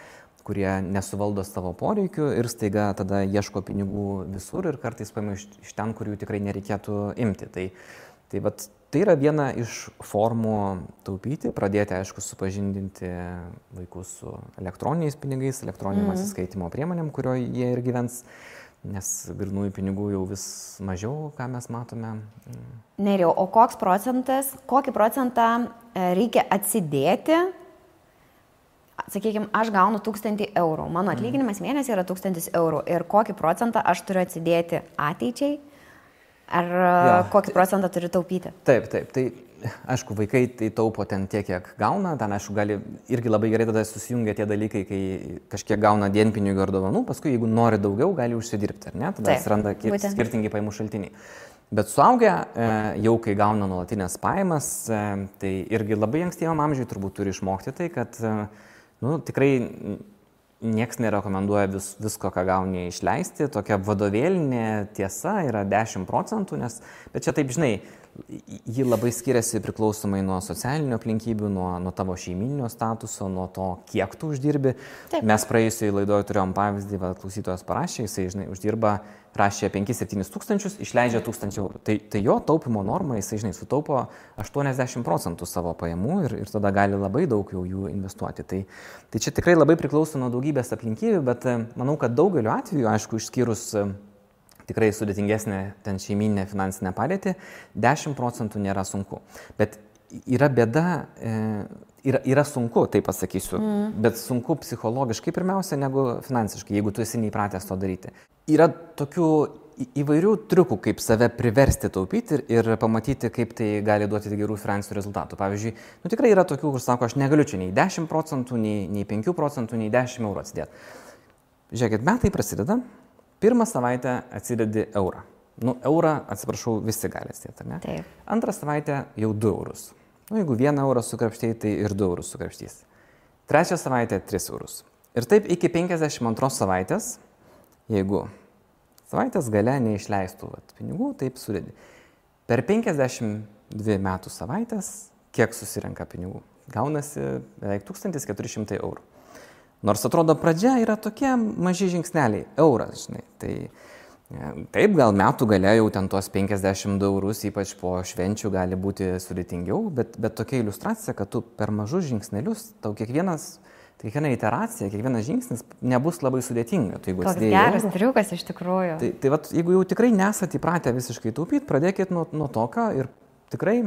kurie nesuvaldo savo poreikių ir staiga tada ieško pinigų visur ir kartais paima iš ten, kur jų tikrai nereikėtų imti. Tai yra viena iš formų taupyti, pradėti, aišku, supažindinti vaikus su elektroniniais pinigais, elektroniniam atsiskaitimo priemonėm, kurio jie ir gyvens, nes grynųjų pinigų jau vis mažiau, ką mes matome. Nerijau, o kokį procentą reikia atsidėti? Sakykime, aš gaunu 1000 eurų, mano atlyginimas mėnesį yra 1000 eurų ir kokį procentą aš turiu atsidėti ateičiai, ar kokį procentą turiu taupyti? Taip, tai aišku, vaikai tai taupo ten tiek, kiek gauna, ten aišku, gali irgi labai gerai tada susijungia tie dalykai, kai kažkiek gauna dienpinigių ar dovanų, paskui jeigu nori daugiau, gali užsidirbti, ar ne, tada atsiranda skirtingi pajamų šaltiniai. Bet suaugę, jau kai gauna nuolatinės pajamas, tai irgi labai ankstyvam amžiui turbūt turi išmokti tai, kad tikrai nieks nerekomenduoja visko, ką gauni išleisti. Tokia vadovėlinė tiesa yra 10%, bet čia taip, žinai, ji labai skiriasi priklausomai nuo socialinių aplinkybių, nuo tavo šeimyninio statuso, nuo to, kiek tu uždirbi. Taip. Mes praėjusiai laidoje turėjom pavyzdį, klausytojas parašė, jisai, žinai, uždirba, rašė 5-7 tūkstančius, išleidžia 1000 eurų. Tai jo taupimo norma, jisai, žinai, sutaupo 80% savo pajamų ir tada gali labai daug jau jų investuoti. Tai čia tikrai labai priklauso nuo daugybės aplinkybių, bet manau, kad daugeliu atveju, aišku, išskyrus tikrai sudėtingesnė ten šeiminė finansinė padėtį, 10% nėra sunku. Bet yra bėda, yra sunku, tai pasakysiu, bet sunku psichologiškai pirmiausia negu finansiškai, jeigu tu esi neįpratęs to daryti. Yra tokių įvairių triukų, kaip save priversti taupyti ir pamatyti, kaip tai gali duoti gerų finansinių rezultatų. Pavyzdžiui, tikrai yra tokių, kur sako, aš negaliu čia nei 10%, nei 5%, nei 10 eurų atsidėti. Žiūrėkit, metai prasideda. Pirmą savaitę atsidedi eurą. Eurą, atsiprašau, visi gali atsidėti, ar ne? Taip. Antrą savaitę jau 2 eurus. Jeigu 1 eurą sukrapštėjai, tai ir 2 eurus sukrapštys. Trečią savaitę 3 eurus. Ir taip iki 52 savaitės, jeigu savaitės gale neišleistų pinigų, taip sudedi. Per 52 metų savaitės, kiek susirenka pinigų? Gaunasi beveik 1400 eurų. Nors atrodo pradžia yra tokie maži žingsneliai, euras, žinai. Taip, gal metų gale jau ten tos 52 eurus, ypač po švenčių, gali būti sudėtingiau, bet tokia iliustracija, kad tu per mažus žingsnelius, tau kiekviena iteracija, kiekvienas žingsnis nebus labai sudėtinga. Toks geras triukas iš tikrųjų. Tai jeigu jau tikrai nesate įpratę visiškai taupyti, pradėkit nuo tokio ir tikrai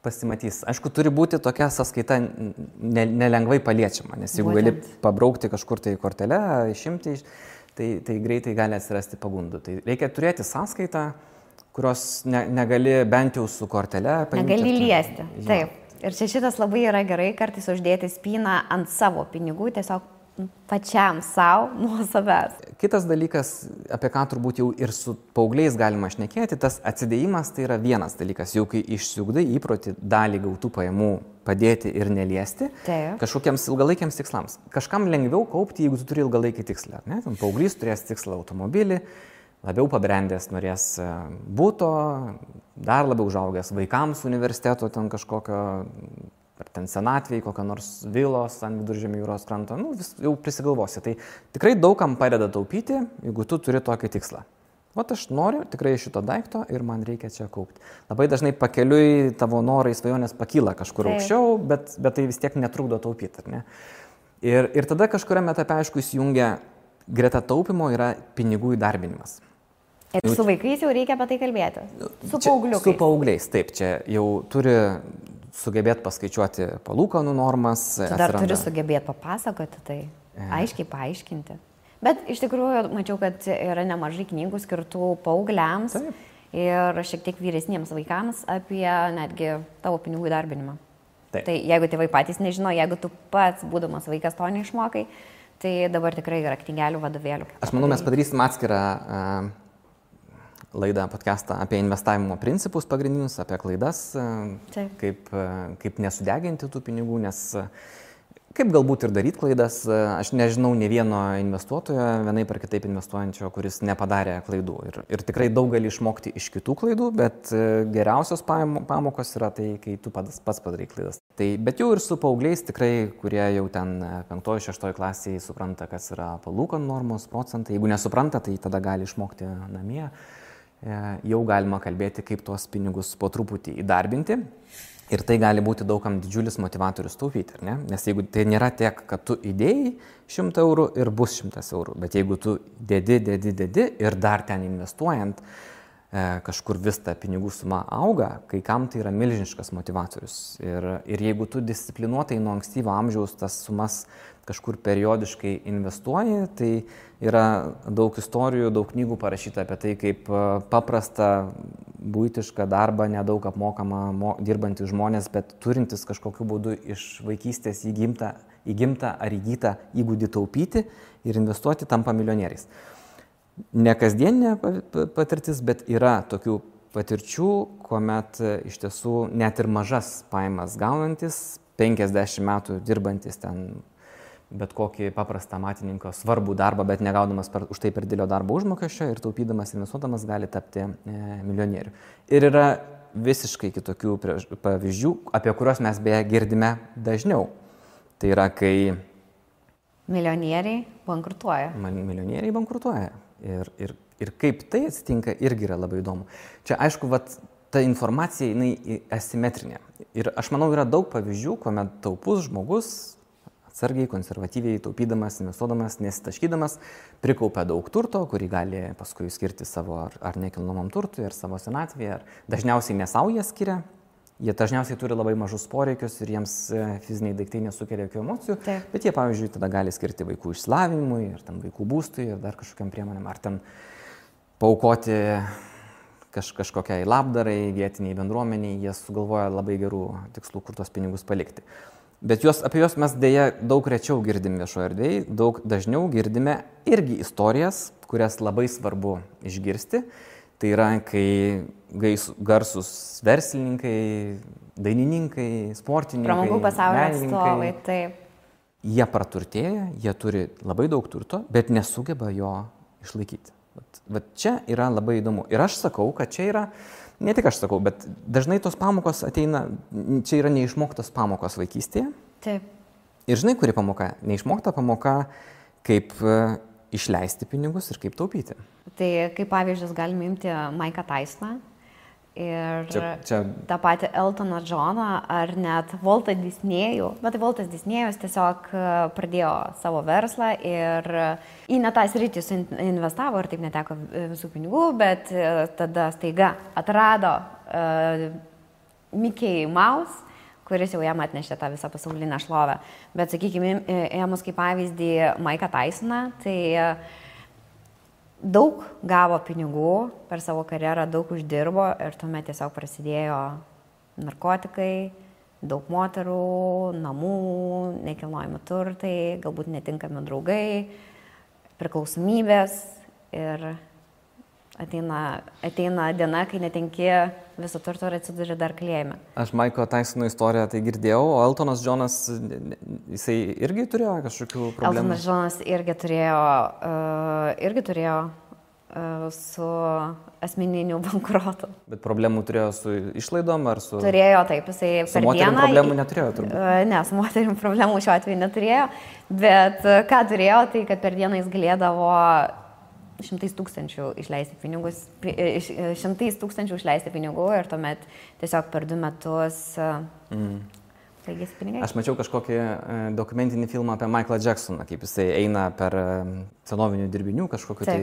pasimatys. Aišku, turi būti tokia sąskaita nelengvai paliečiama, nes jeigu gali pabraukti kažkur tai kortelę, išimti, tai greitai gali atsirasti pagundų. Tai reikia turėti sąskaitą, kurios negali bent jau su kortele paimti. Negali liesti, taip. Ir čia šitas labai yra gerai, kartais uždėti spyną ant savo pinigų, tiesiog pačiam savo, nuo savęs. Kitas dalykas, apie ką turbūt jau ir su paaugliais galima šnekėti, tas atsidėjimas tai yra vienas dalykas, jau kai išsiugdai įprotį dalį gautų pajamų padėti ir neliesti kažkokiems ilgalaikiams tikslams. Kažkam lengviau kaupti, jeigu tu turi ilgalaikį tikslą. Paauglys turės tikslą automobilį, labiau pabrendęs norės būto, dar labiau užaugęs vaikams universiteto ten kažkokio, ar ten senatvėj, kokią nors vilos ant Viduržemio jūros kranto, jau prisigalvosi. Tai tikrai daugam padeda taupyti, jeigu tu turi tokį tikslą. Aš noriu tikrai šito daikto ir man reikia čia kaupti. Labai dažnai pakeliui tavo norai, svajonės pakyla kažkur aukščiau, bet tai vis tiek netrukdo taupyti, ar ne? Ir tada kažkuriame etape, aišku, įsijungia greta taupimo yra pinigų įdarbinimas. Ir su vaikais jau reikia apie tai kalbėti? Su paaugliukais? Su paaugliais, taip. Čia jau turi sugebėti paskaičiuoti palūkanų normas. Tu dar turi sugebėti papasakoti tai, aiškiai paaiškinti. Bet iš tikrųjų mačiau, kad yra nemažai knygų skirtų paaugliams ir šiek tiek vyresniems vaikams apie netgi tavo pinigų įdarbinimą. Tai jeigu tėvai patys nežino, jeigu tu pats, būdamas vaikas, to neišmokai, Tai dabar tikrai yra knygelių, vadovėlių. Aš manau, mes padarysim atskirą laidą, podcastą apie investavimo principus pagrindinius, apie klaidas, kaip nesudeginti tų pinigų, nes kaip galbūt ir daryti klaidas. Aš nežinau ne vieno investuotojo, vienaip ar kitaip investuojančio, kuris nepadarė klaidų. Ir tikrai daug gali išmokti iš kitų klaidų, bet geriausios pamokos yra tai, kai tu pats padarai klaidas. Bet jau ir su paaugliais tikrai, kurie jau ten 5-6 klasėje supranta, kas yra palūkanų normos, procentai. Jeigu nesupranta, tai tada gali išmokti namie. Jau galima kalbėti, kaip tuos pinigus po truputį įdarbinti. Ir tai gali būti daugam didžiulis motivatorius taupyti, ar ne? Nes jeigu tai nėra tiek, kad tu įdėjai 100 eurų ir bus 100 eurų, bet jeigu tu dedi ir dar ten investuojant, kažkur vis ta pinigų suma auga, kai kam tai yra milžiniškas motivatorius. Ir jeigu tu disciplinuotai nuo ankstyvo amžiaus tas sumas kažkur periodiškai investuoji, tai yra daug istorijų, daug knygų parašyta apie tai, kaip paprasta buitišką darbą, nedaug apmokama dirbantys žmonės, bet turintis kažkokiu būdu iš vaikystės įgimtą ar įgytą įgūdį taupyti ir investuoti, tampa milijonieriais. Ne kasdieninė patirtis, bet yra tokių patirčių, kuomet iš tiesų net ir mažas pajamas gaunantis, 50 metų dirbantis ten bet kokį paprastą amatininko svarbų darbą, bet negaudamas už tai per didelio darbo užmokesčio ir taupydamas, investuodamas gali tapti milijonieriu. Ir yra visiškai kitokių pavyzdžių, apie kuriuos mes beje girdime dažniau. Tai yra, kai milijonieriai bankrutuoja. Milijonieriai bankrutuoja. Ir kaip tai atsitinka, irgi yra labai įdomu. Čia, aišku, ta informacija, jinai asimetrinė. Ir aš manau, yra daug pavyzdžių, kuomet taupus žmogus, atsargiai, konservatyviai, taupydamas, investuodamas, nesitaškydamas, prikaupia daug turto, kurį gali paskui skirti savo ar nekilnojamam turtui, ar savo senatvėje, ar dažniausiai ne savo jie skiria. Jie dažniausiai turi labai mažus poreikius ir jiems fiziniai daiktai nesukelia jokių emocijų, bet jie, pavyzdžiui, tada gali skirti vaikų išsilavinimui, ar ten vaikų būstui, ir dar kažkokiam priemonėm, ar ten paaukoti kažkokiai labdarai, vietiniai bendruomeniai, jie sugalvoja labai gerų tikslų, kur tos pinigus palikti. Bet apie juos mes dėja daug rečiau girdim viešoje erdvėje, daug dažniau girdime irgi istorijas, kurias labai svarbu išgirsti. Tai yra, kai garsus verslininkai, dainininkai, sportininkai, pramogų pasaulio atstovai, taip. Jie praturtėja, jie turi labai daug turto, bet nesugeba jo išlaikyti. Vat čia yra labai įdomu. Ir aš sakau, kad čia yra, ne tik aš sakau, bet dažnai tos pamokos ateina, čia yra neišmoktos pamokos vaikystėje. Taip. Ir žinai, kuri pamoka? Neišmokta pamoka, kaip išleisti pinigus ir kaip taupyti. Tai kaip pavyzdžius galime imti Mike'ą Tysoną ir čia tą patį Eltoną Johną ar net Waltą Disnėjų. Bet Waltas Disnėjus tiesiog pradėjo savo verslą ir į ne tą sritį investavo ir taip neteko visų pinigų, bet tada staiga atrado Mickey Mouse, kuris jau jam atnešė tą visą pasaulinę šlovę. Bet, sakykime, ėmus kaip pavyzdį Mike'ą Tysoną, tai daug gavo pinigų per savo karjerą, daug uždirbo ir tuomet tiesiog prasidėjo narkotikai, daug moterų, namų, nekilnojami turtai, galbūt netinkami draugai, priklausomybės ir ateina diena, kai netenki viso turto ir atsiduri dar kalėjime. Aš Mike'o Tysono istoriją tai girdėjau, o Eltonas Johnas, jisai irgi turėjo kažkokių problemų? Eltonas Johnas irgi turėjo su asmeniniu bankrotu. Bet problemų turėjo su išlaidom ar su... Turėjo, taip, jisai per dieną... Su moterim problemų neturėjo turbūt? Ne, su moterim problemų šiuo atveju neturėjo, bet ką turėjo, tai kad per dieną jis galėdavo 100 000 išleisti pinigus, 100 000 išleisti pinigų ir tuomet tiesiog per 2 metus baigėsi pinigai. Aš mačiau kažkokį dokumentinį filmą apie Michaelą Jacksoną, kaip jisai eina per senovinių dirbinių kažkokiu tai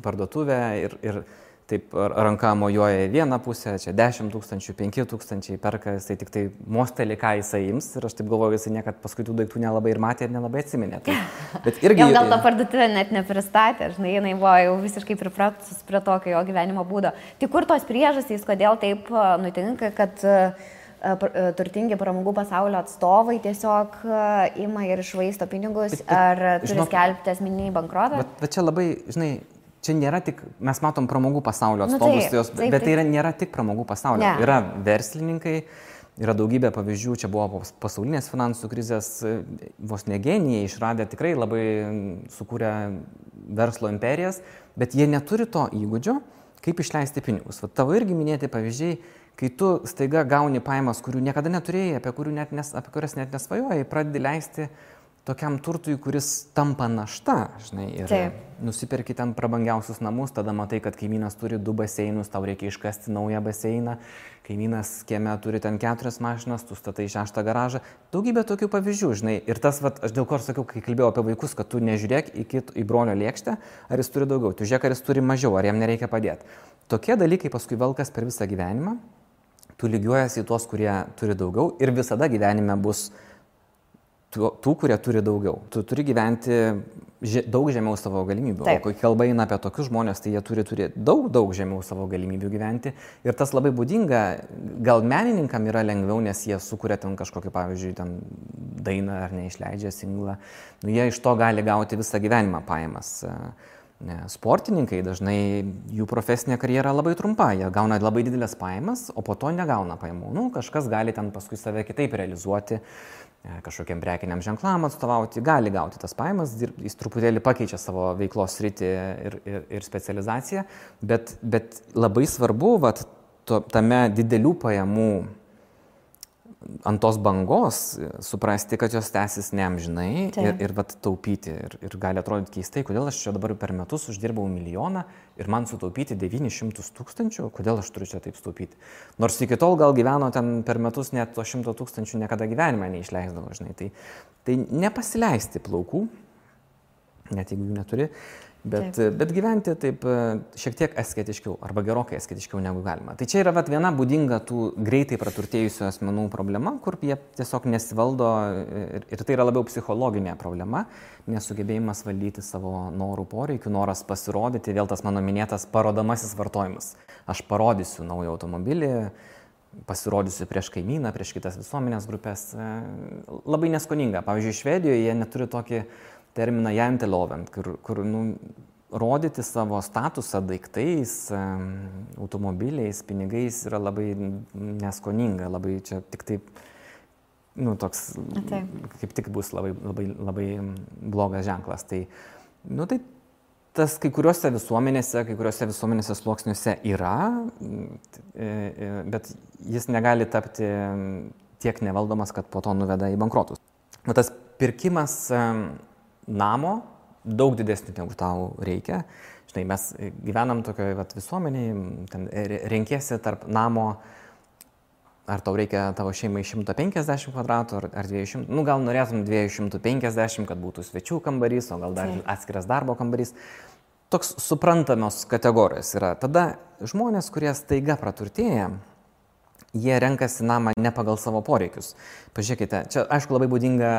parduotuvę ir taip ranka mojuoja į vieną pusę, čia 10 000, 5 000 perka, jisai tik tai mostelį, ką jisai ims ir aš taip galvoju, jisai niekad paskui tų daiktų nelabai ir matė ir nelabai atsiminė. Tai, bet irgi... Jam gal tą parduotuvę net nepristatė, žinai, jinai buvo jau visiškai pripratus prie tokio jo gyvenimo būdo. Tai kur tos priežastys, kodėl taip nutinka, kad turtingi pramogų pasaulio atstovai tiesiog ima ir išvaisto pinigus, ar turi skelbti asmeninį bankrotą? Bet čia labai, žinai, čia nėra tik, mes matom pramogų pasaulio atstovus, bet tai nėra tik pramogų pasaulio. Ne. Yra verslininkai, yra daugybė pavyzdžių, čia buvo pasaulinės finansų krizės, vos ne genijai išradę tikrai labai sukūrę verslo imperijas, bet jie neturi to įgūdžio, kaip išleisti pinigus. Va, tavo irgi minėti pavyzdžiai, kai tu staiga gauni pajamas, kurių niekada neturėjai, apie kurias net nesvajojai, pradedi leisti tokiam turtui, kuris tampa našta, žinai, ir nusiperki ten prabangiausius namus, tada matai, kad kaimynas turi 2 baseinus, tau reikia iškasti naują baseiną, kaimynas kieme turi ten 4 mašinas, tu statai 6 garažą, daugybė tokių pavyzdžių, žinai, ir tas, vat, aš dėl ko sakiau, kai kalbėjau apie vaikus, kad tu nežiūrėk į brolio lėkštę, ar jis turi daugiau, tu žiūrėk, ar jis turi mažiau, ar jam nereikia padėti. Tokie dalykai paskui velkas per visą gyvenimą, tu lygiuojasi į tuos, kurie turi daugiau ir visada gyvenime bus tų, kurie turi daugiau. Tu turi gyventi daug žemiau savo galimybių. O kai kalba eina apie tokius žmonės, tai jie turi daug žemiau savo galimybių gyventi. Ir tas labai būdinga, gal menininkam yra lengviau, nes jie sukuria ten kažkokį, pavyzdžiui, ten dainą ar neišleidžia singlą. Nu, jie iš to gali gauti visą gyvenimą pajamas. Sportininkai dažnai jų profesinė karjera labai trumpa, jie gauna labai didelės pajamas, o po to negauna pajamų. Nu, kažkas gali ten paskui save kitaip realizuoti, kažkokiam prekiniam ženklam atstovauti, gali gauti tas pajamas, jis truputėlį pakeičia savo veiklos sritį ir specializaciją, bet labai svarbu tame didelių pajamų ant tos bangos suprasti, kad jos tęsis neamžinai ir taupyti. Ir gali atrodyti keistai, kodėl aš čia dabar per metus uždirbau 1 milijoną ir man sutaupyti 900 000, kodėl aš turiu čia taip sutaupyti. Nors iki tol gal gyveno ten per metus net to 100 000 niekada gyvenime neišleisdavo, žinai. Tai nepasileisti plaukų, net jeigu jų neturi, bet gyventi taip šiek tiek asketiškiau arba gerokai asketiškiau negu galima. Tai čia yra viena būdinga tų greitai praturtėjusių asmenų problema, kur jie tiesiog nesivaldo ir tai yra labiau psichologinė problema, nesugebėjimas valdyti savo norų poreikių, noras pasirodyti, vėl tas mano minėtas parodomasis vartojimas. Aš parodysiu naują automobilį, pasirodysiu prieš kaimyną, prieš kitas visuomenės grupės. Labai neskoninga. Pavyzdžiui, Švedijoje jie neturi tokį terminą janteloven, kur rodyti savo statusą daiktais, automobiliais, pinigais yra labai neskoninga, labai čia tik taip, toks, kaip tik bus labai blogas ženklas. Tai tas kai kuriuose visuomenėse sluoksniuose yra, bet jis negali tapti tiek nevaldomas, kad po to nuveda į bankrotus. Tas pirkimas namo daug didesnį negu tau reikia. Žinai, mes gyvenam tokioje visuomenėje, ten renkiesi tarp namo, ar tau reikia tavo šeimai 150 kvadratų ar 200, gal norėtum 250, kad būtų svečių kambarys, o gal dar atskiras darbo kambarys. Toks suprantamos kategorijos yra. Tada žmonės, kurie staiga praturtėja, jie renkasi namą ne pagal savo poreikius. Pažiūrėkite, čia aišku labai būdinga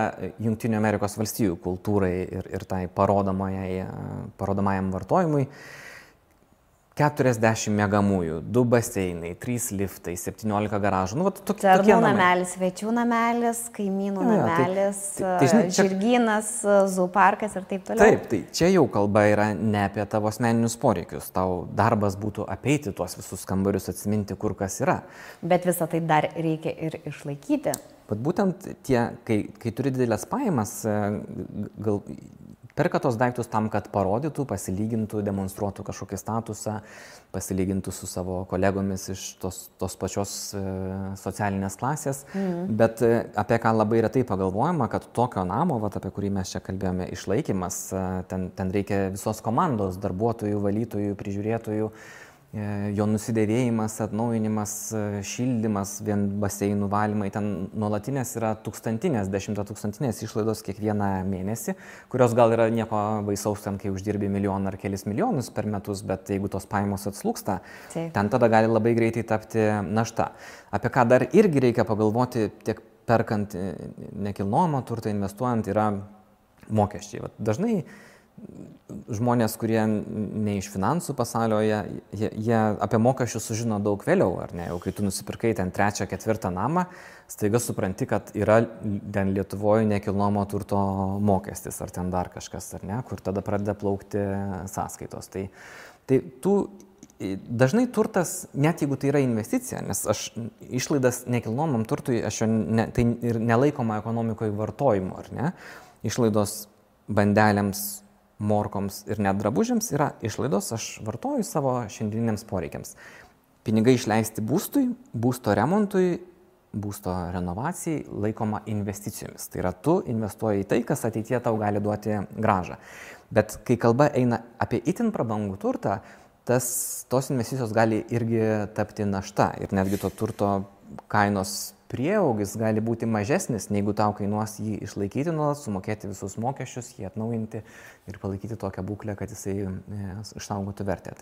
Jungtinių Amerikos valstijų kultūrai ir tai parodomajam vartojimui. 40 miegamųjų, 2 baseinai, 3 liftai, 17 garažų. Darbų namelis, svečių namelis, kaimynų namelis, žirgynas, zooparkas ir taip toliau. Taip, tai čia jau kalba yra ne apie tavo asmeninius poreikius. Tau darbas būtų apeiti tuos visus kambarius, atsiminti, kur kas yra. Bet visą tai dar reikia ir išlaikyti. Bet būtent kai turi didelės pajamas, perka tos daiktus tam, kad parodytų, pasilygintų, demonstruotų kažkokį statusą, pasilygintų su savo kolegomis iš tos pačios socialinės klasės. Bet apie ką labai retai pagalvojama, kad tokio namo, apie kurį mes čia kalbėjome, išlaikymas, ten reikia visos komandos, darbuotojų, valytojų, prižiūrėtojų, jo nusidėvėjimas, atnaujinimas, šildymas, vien baseinų valymai, ten nuolatinės yra 1000, 10 000 išlaidos kiekvieną mėnesį, kurios gal yra nieko baisaus ten, kai uždirbi 1 milijoną ar kelis milijonus per metus, bet jeigu tos pajamos atslūgsta, ten tada gali labai greitai tapti našta. Apie ką dar irgi reikia pagalvoti, tiek perkant nekilnojamą turtą, investuojant, yra mokesčiai. Dažnai žmonės, kurie ne iš finansų pasaulio, jie apie mokesčius sužino daug vėliau, ar ne? Jau kai tu nusipirkai ten 3, 4 namą, staiga supranti, kad yra ten Lietuvoje nekilnojamo turto mokestis, ar ten dar kažkas, ar ne, kur tada pradeda plaukti sąskaitos. Tai dažnai turtas, net jeigu tai yra investicija, nes aš išlaidas nekilnojamam turtui, tai ir nelaikoma ekonomikoje vartojimu, ar ne? Išlaidos bandelėms, morkoms ir net drabužiams yra išlaidos, aš vartoju savo šiandieniniams poreikiams. Pinigai išleisti būstui, būsto remontui, būsto renovacijai laikoma investicijomis. Tai yra, tu investuoji į tai, kas ateityje tau gali duoti grąžą. Bet kai kalba eina apie itin prabangų turtą, tos investicijos gali irgi tapti našta ir netgi to turto kainos prieaugis gali būti mažesnis, negu tau kainuos jį išlaikyti nuolat, sumokėti visus mokesčius, jį atnaujinti ir palaikyti tokią būklę, kad jisai išsaugotų vertę.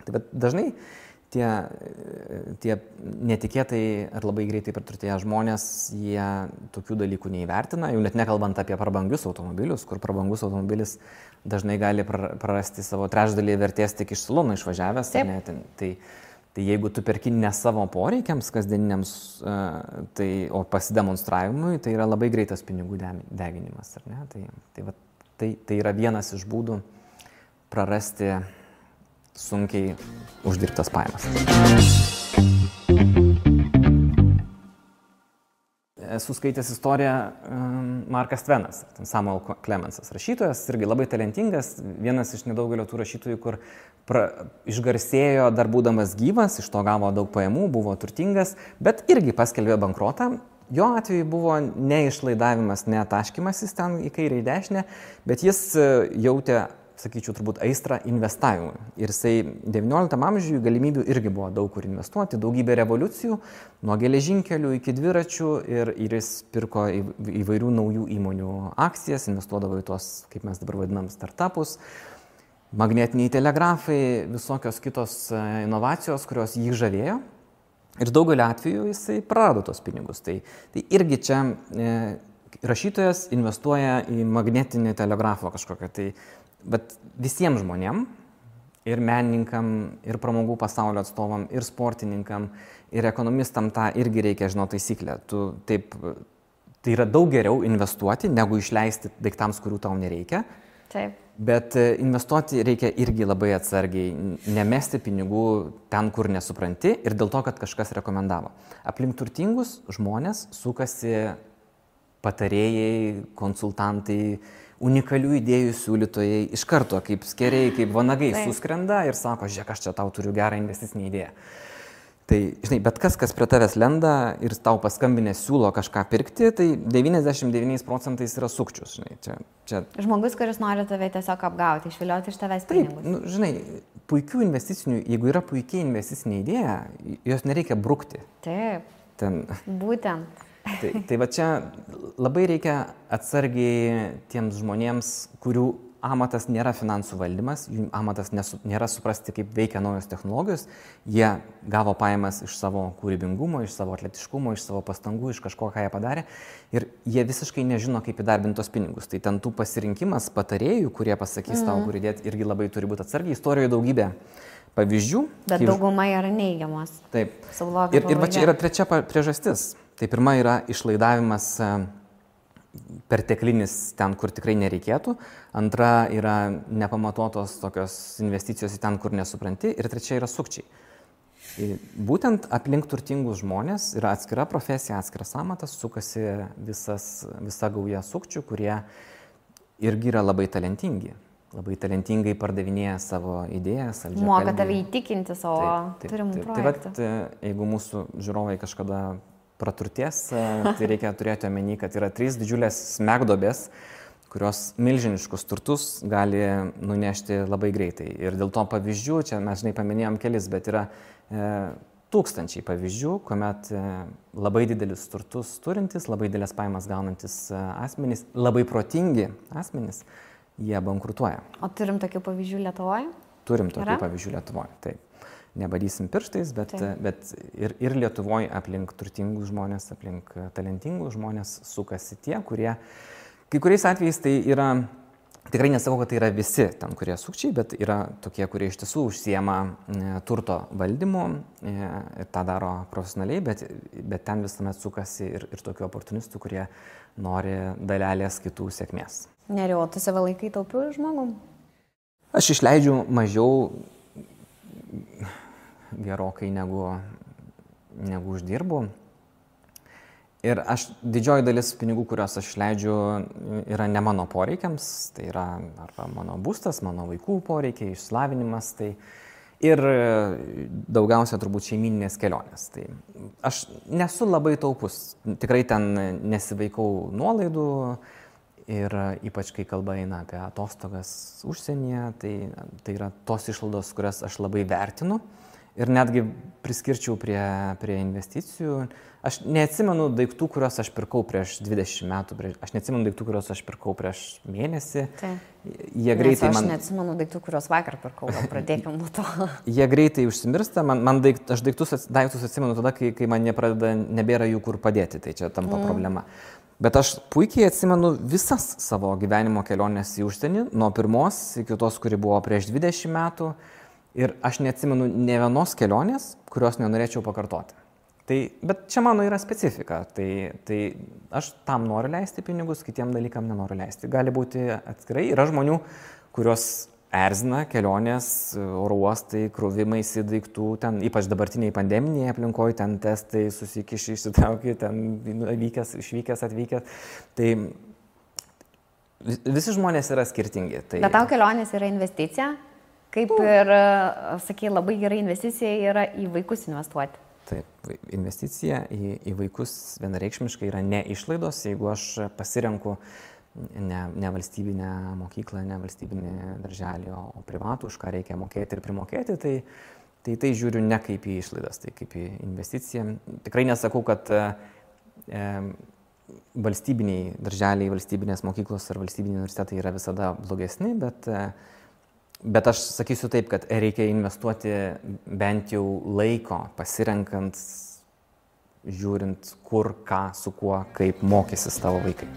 Bet dažnai tie netikėtai ar labai greitai praturtėję žmonės, jie tokių dalykų neįvertina, jau net nekalbant apie prabangius automobilius, kur prabangus automobilis dažnai gali prarasti savo trečdalį vertės tik iš salono išvažiavęs. Tai jeigu tu perki ne savo poreikiams kasdieniniams, o pasidemonstravimui, tai yra labai greitas pinigų deginimas. Ar ne? Tai yra vienas iš būdų prarasti sunkiai uždirbtas pajamas. Esu skaitęs istoriją Markas Tvenas, Samuel Clemensas, rašytojas, irgi labai talentingas, vienas iš nedaugelio tų rašytojų, kur išgarsėjo dar būdamas gyvas, iš to gavo daug pajamų, buvo turtingas, bet irgi paskelbė bankrotą. Jo atveju buvo ne išlaidavimas, ne taškymasis ten į kairę į dešinę, bet jis jautė, sakyčiau, turbūt aistrą investavimui. Ir jisai 19 amžiuje galimybių irgi buvo daug kur investuoti, daugybė revoliucijų, nuo geležinkelių iki dviračių ir jis pirko įvairių naujų įmonių akcijas, investuodavo į tos, kaip mes dabar vadinam, startupus, magnetiniai telegrafai, visokios kitos inovacijos, kurios jį žavėjo. Ir daugelį atvejų jisai prarado tos pinigus. Tai irgi čia rašytojas investuoja į magnetinį telegrafą kažkokią. Bet visiems žmonėm, ir menininkam, ir pramogų pasaulio atstovam, ir sportininkam, ir ekonomistam tą irgi reikia žinoti taisyklę. Tai yra daug geriau investuoti, negu išleisti daiktams, kurių tau nereikia. Taip. Bet investuoti reikia irgi labai atsargiai, nemesti pinigų ten, kur nesupranti ir dėl to, kad kažkas rekomendavo. Aplink turtingus žmonės sukasi patarėjai, konsultantai, unikalių idėjų siūlytojai, iš karto kaip skeriai, kaip vanagai suskrenda ir sako, žiūrėk, aš čia tau turiu gerą investicinį idėją. Tai, žinai, bet kas prie tavęs lenda ir tau paskambinę siūlo kažką pirkti, tai 99% yra sukčius, žinai. Čia... Žmogus, kuris nori tave tiesiog apgauti, išvilioti iš tavęs pinigus. Taip, žinai, puikių investicinių, jeigu yra puikiai investicinė idėja, jos nereikia brukti. Taip, būtent. Tai va čia labai reikia atsargiai tiems žmonėms, kurių amatas nėra finansų valdymas, jų amatas nėra suprasti, kaip veikia naujos technologijos, jie gavo pajamas iš savo kūrybingumo, iš savo atletiškumo, iš savo pastangų, iš kažko, ką jie padarė ir jie visiškai nežino, kaip įdarbinti tos pinigus. Tai ten tų pasirinkimas patarėjų, kurie pasakys tau, kur įdėti, irgi labai turi būti atsargiai. Istorijoje daugybė pavyzdžių. Bet dauguma yra neigiamos. Taip. Ir va čia yra trečia priežastis. Tai pirma yra išlaidavimas perteklinis ten, kur tikrai nereikėtų. Antra yra nepamatuotos tokios investicijos į ten, kur nesupranti. Ir trečia yra sukčiai. Būtent aplink turtingus žmonės yra atskira profesija, atskiras amatas, sukasi visa gauja sukčių, kurie irgi yra labai talentingi. Labai talentingai pardavinėja savo idėjas. Moka tave įtikinti savo turimų projektų. Tai jeigu mūsų žiūrovai kažkada praturties, tai reikia turėti omeny, kad yra 3 didžiulės smegduobės, kurios milžiniškus turtus gali nunešti labai greitai. Ir dėl to pavyzdžių, čia mes žinai paminėjom kelis, bet yra tūkstančiai pavyzdžių, kuomet labai didelis turtus turintis, labai didelės pajamas gaunantis asmenys, labai protingi asmenys, jie bankrutuoja. O turim tokių pavyzdžių Lietuvoje? Turim tokių pavyzdžių Lietuvoje, taip. Nebadysim pirštais, bet ir Lietuvoje aplink turtingus žmonės, aplink talentingus žmonės sukasi tie, kurie, kai kuriais atvejais tai yra Tikrai nesakau, kad tai yra visi ten, kurie sukčiai, bet yra tokie, kurie iš tiesų užsiema turto valdymu ir tą daro profesionaliai, bet ten visuomet sukasi ir tokių oportunistų, kurie nori dalelės kitų sėkmės. Neriau, tu save laikai taupiu žmogum? Aš išleidžiu mažiau gerokai negu uždirbu. Ir didžioji dalis pinigų, kuriuos aš leidžiu, yra ne mano poreikiams, tai yra arba mano būstas, mano vaikų poreikiai, išsilavinimas, tai ir daugiausia turbūt šeimyninės kelionės. Tai aš nesu labai taupus, tikrai ten nesivaikau nuolaidų ir ypač kai kalba eina apie atostogas užsienyje, tai yra tos išlaidos, kurias aš labai vertinu. Ir netgi priskirčiau prie investicijų. Aš neatsimenu daiktų, kuriuos aš pirkau prieš 20 metų. Aš neatsimenu daiktų, kuriuos aš pirkau prieš mėnesį. Jie greitai aš neatsimenu daiktų, kuriuos vakar pirkau. Pradėkime nuo to. Jie greitai užsimirsta. Aš daiktus atsimenu tada, kai man nebėra jų kur padėti. Tai čia tampa problema. Bet aš puikiai atsimenu visas savo gyvenimo keliones į užsienį. Nuo pirmos iki tos, kuri buvo prieš 20 metų. Ir aš neatsimenu ne vienos kelionės, kurios nenorėčiau pakartoti. Bet čia mano yra specifika. Tai aš tam noriu leisti pinigus, kitiem dalykam nenoriu leisti. Gali būti atskirai. Yra žmonių, kurios erzina kelionės, oro uostai, krovimaisi daiktų, ten ypač dabartiniai pandeminiai aplinkoje, ten testai, susikiši, išsitrauki, ten išvykęs, atvykęs. Tai visi žmonės yra skirtingi. Bet tau kelionės yra investicija? Kaip ir, sakai, labai gera investicija yra į vaikus investuoti. Taip, investicija į vaikus vienareikšmiškai yra ne išlaidos. Jeigu aš pasirenku ne valstybinę mokyklą, ne valstybinį darželį, o privatų, už ką reikia mokėti ir primokėti, tai žiūriu ne kaip į išlaidas, tai kaip į investiciją. Tikrai nesakau, kad valstybiniai darželiai, valstybinės mokyklos ar valstybiniai universitetai yra visada blogesni, bet aš sakysiu taip, kad reikia investuoti bent jau laiko, pasirenkant, žiūrint, kur, ką, su kuo, kaip mokysis tavo vaikai.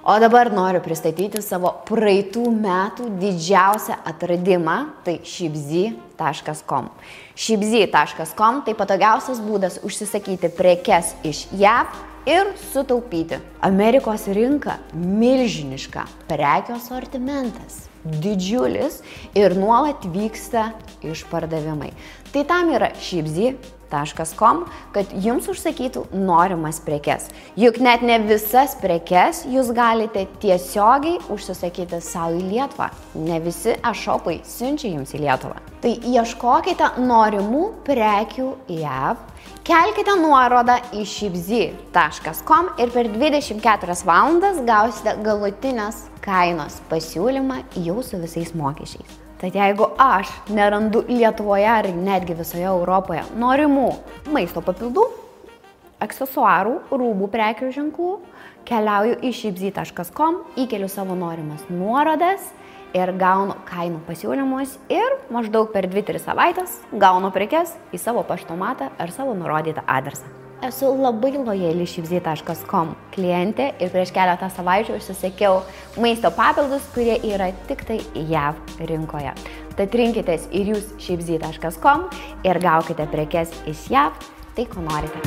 O dabar noriu pristatyti savo praeitų metų didžiausią atradimą, tai shipzy.com. Shipzy.com tai patogiausias būdas užsisakyti prekes iš JAV ir sutaupyti. Amerikos rinka milžiniška, prekių asortimentas didžiulis ir nuolat vyksta išpardavimai. Tai tam yra shipzy.com, kad jums užsakytų norimas prekes. Juk net ne visas prekes jūs galite tiesiogiai užsisakyti savo į Lietuvą. Ne visi e-shopai siunčia jums į Lietuvą. Tai ieškokite norimų prekių JAV, kelkite nuorodą į shipzy.com ir per 24 valandas gausite galutinės kainos pasiūlymą jau su visais mokesčiais. Tad jeigu aš nerandu Lietuvoje ar netgi visoje Europoje norimų maisto papildų, aksesuarų, rūbų prekių ženklų, keliauju į shipzy.com, įkeliu savo norimas nuorodas ir gaunu kainų pasiūlymus ir maždaug per 2-3 savaitės gaunu prekes į savo paštomatą ar savo nurodytą adresą. Esu labai lojali shipzy.com klientė ir prieš keletą savaičių užsisakiau maisto papildus, kurie yra tik tai JAV rinkoje. Tad rinkitės ir jūs shipzy.com ir gaukite prekes iš JAV, tai ko norite.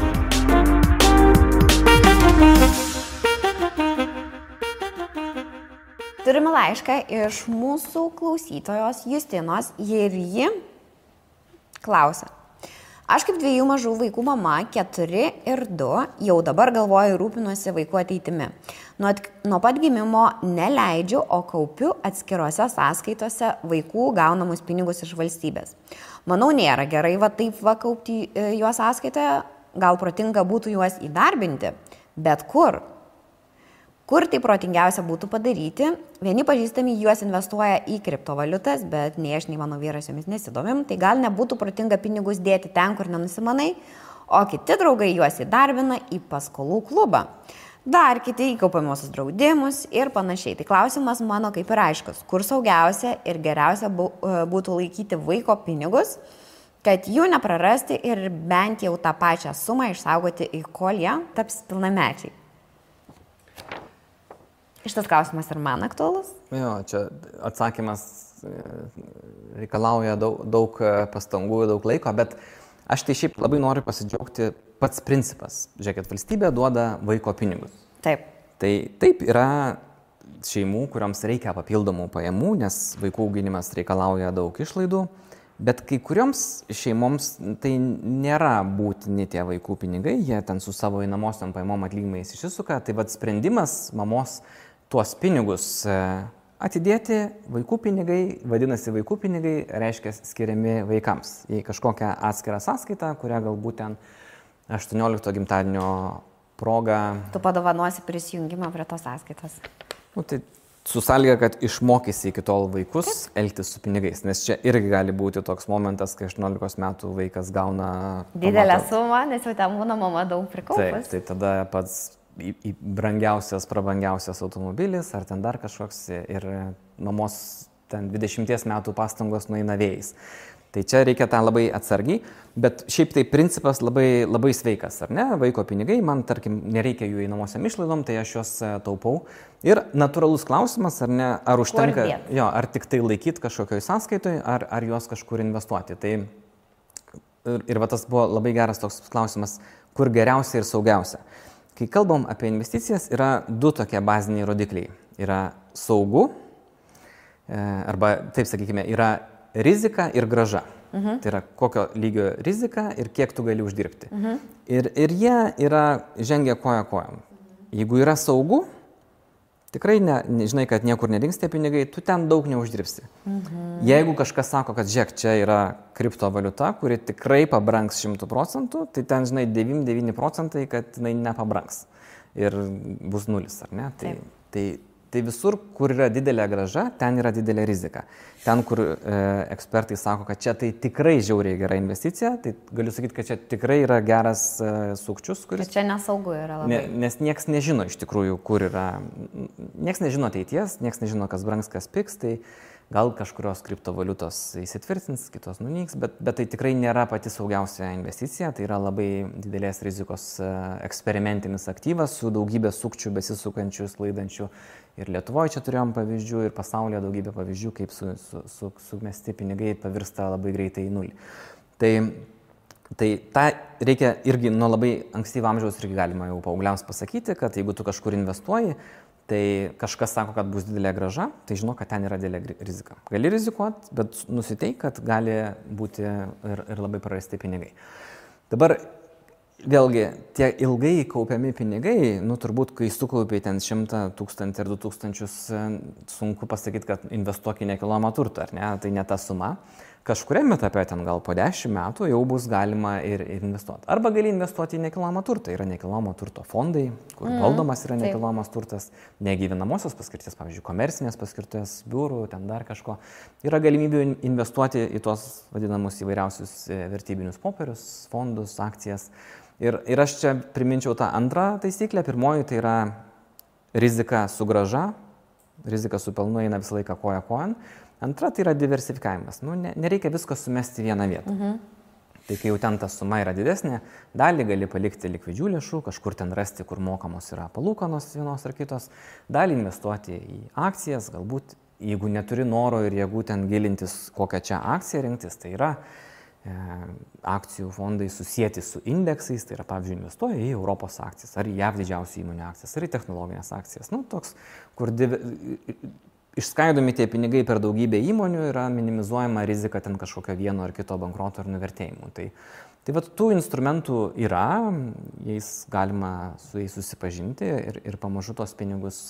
Turime laišką iš mūsų klausytojos Justinos ir ji klausia. Aš kaip 2 mažų vaikų mama, 4 ir 2, jau dabar galvoju rūpinuosi vaikų ateitimi. Nuo pat gimimo neleidžiu, o kaupiu atskirose sąskaitose vaikų gaunamus pinigus iš valstybės. Manau, nėra gerai taip kaupti juos sąskaitoje, gal protinga būtų juos įdarbinti, bet kur? Kur tai protingiausia būtų padaryti? Vieni pažįstami juos investuoja į kriptovaliutas, bet nei aš, nei mano vyras jomis nesidomim, tai gal nebūtų protinga pinigus dėti ten, kur nenusimanai, o kiti draugai juos įdarbina į paskolų klubą. Dar kiti į kaupiamuosius draudimus ir panašiai. Tai klausimas mano kaip ir aiškus, kur saugiausia ir geriausia būtų laikyti vaiko pinigus, kad jų neprarasti ir bent jau tą pačią sumą išsaugoti, kol jie taps pilnamečiai. Šitas klausimas ir man aktualus? Jo, čia atsakymas reikalauja daug pastangų, daug laiko, bet aš tai šiaip labai noriu pasidžiaugti pats principas. Žiūrėkit, valstybė duoda vaiko pinigus. Taip. Tai taip yra šeimų, kuriams reikia papildomų pajamų, nes vaikų auginimas reikalauja daug išlaidų, bet kai kurioms šeimoms tai nėra būtini tie vaikų pinigai, jie ten su savo einamosiom pajamom atlyginimais išsisuka, tai vat sprendimas mamos tuos pinigus atidėti, vaikų pinigai, vadinasi vaikų pinigai, reiškia skiriami vaikams į kažkokią atskirą sąskaitą, kurią galbūt ten 18 gimtadienio proga. Tu padovanosi prisijungimą prie tos sąskaitos. Nu, tai su sąlyga, kad išmokysi iki tol vaikus elgtis su pinigais, nes čia irgi gali būti toks momentas, kai 18 metų vaikas gauna didelę sumą, nes jau ten būna mama daug prikaupus. Taip, tai tada pats į brangiausias, prabangiausias automobilis ar ten dar kažkoks ir mamos ten 20 metų pastangos nueina vėjais. Tai čia reikia tą labai atsargiai, bet šiaip tai principas labai, labai sveikas, ar ne? Vaiko pinigai, man tarkim nereikia jų einamosiam išlaidom, tai aš juos taupau. Ir natūralus klausimas, ar ne, ar užtenka, jo, ar tik tai laikyti kažkokioj sąskaitoj, ar juos kažkur investuoti. Tai ir va tas buvo labai geras toks klausimas, kur geriausia ir saugiausia. Kai kalbam apie investicijas, yra du tokie baziniai rodikliai. Yra saugu, arba taip sakykime, yra rizika ir grąža. Tai yra kokio lygio rizika ir kiek tu gali uždirbti. Ir jie yra žengia koja kojam. Jeigu yra saugu, tikrai žinai, kad niekur nedings tie pinigai, tu ten daug neuždirbsi. Jeigu kažkas sako, kad žiūrėk, čia yra kriptovaliuta, kuri tikrai pabrangs 100%, tai ten, žinai, 99%, kad jinai nepabrangs. Ir bus nulis, ar ne? Tai visur, kur yra didelė grąža, ten yra didelė rizika. Ten, kur ekspertai sako, kad čia tai tikrai žiauriai gera investicija, tai galiu sakyti, kad čia tikrai yra geras sukčius, kuris... Bet čia nesaugu yra labai. Nes nieks nežino iš tikrųjų, kur yra... Nieks nežino ateities, nieks nežino, kas brangs, kas pigs, tai gal kažkurios kriptovaliutos įsitvirtins, kitos nunyks, bet tai tikrai nėra pati saugiausia investicija, tai yra labai didelės rizikos eksperimentinis aktyvas su daugybė sukčių, besisukančių, sklaidančių. Ir Lietuvoje čia turėjom pavyzdžių, ir pasaulyje daugybė pavyzdžių, kaip sumesti pinigai pavirsta labai greitai į nulį. Tai tą reikia irgi nuo labai ankstyvo amžiaus irgi galima jau paaugliams pasakyti, kad jeigu tu kažkur investuoji, tai kažkas sako, kad bus didelė grąža, tai žinok, kad ten yra didelė rizika. Gali rizikuoti, bet nusiteik, kad gali būti ir labai prarasti pinigai. Dabar vėlgi, tie ilgai kaupiami pinigai, turbūt, kai sukaupiai ten 100 000 ir 2000, sunku pasakyti, kad investuok į nekilnojamą turtą, ar ne, tai ne ta suma. Kažkuriame etape ten gal po 10 metų jau bus galima ir investuoti. Arba gali investuoti į nekilnojamą turtą. Yra nekilnojamo turto fondai, kur valdomas yra nekilnojamas turtas, negyvenamosios paskirties, pavyzdžiui, komercinės paskirties, biurų, ten dar kažko. Yra galimybių investuoti į tuos vadinamus įvairiausius vertybinius popierius, fondus, akcijas. Ir aš čia priminčiau tą antrą taisyklę. Pirmoji tai yra rizika su grąža, rizika su pelnu eina visą laiką koja kojan. Antra tai yra diversifikavimas. Nereikia visko sumesti į vieną vietą. Tai kai jau ten ta suma yra didesnė, dalį gali palikti likvidžių lėšų, kažkur ten rasti, kur mokamos yra palūkanos vienos ar kitos, dalį investuoti į akcijas, galbūt jeigu neturi noro ir jėgų ten gilintis, kokią čia akciją rinktis, tai yra akcijų fondai susijęti su indeksais, tai yra, pavyzdžiui, investuoja į Europos akcijas, ar į JAV didžiausių įmonių akcijas, ar į technologinės akcijas. Toks, kur išskaidomi tie pinigai per daugybę įmonių, yra minimizuojama rizika ten kažkokio vieno ar kito bankroto ar nuvertėjimų. Tai vat tų instrumentų yra, jais galima su jais susipažinti ir pamažu tos pinigus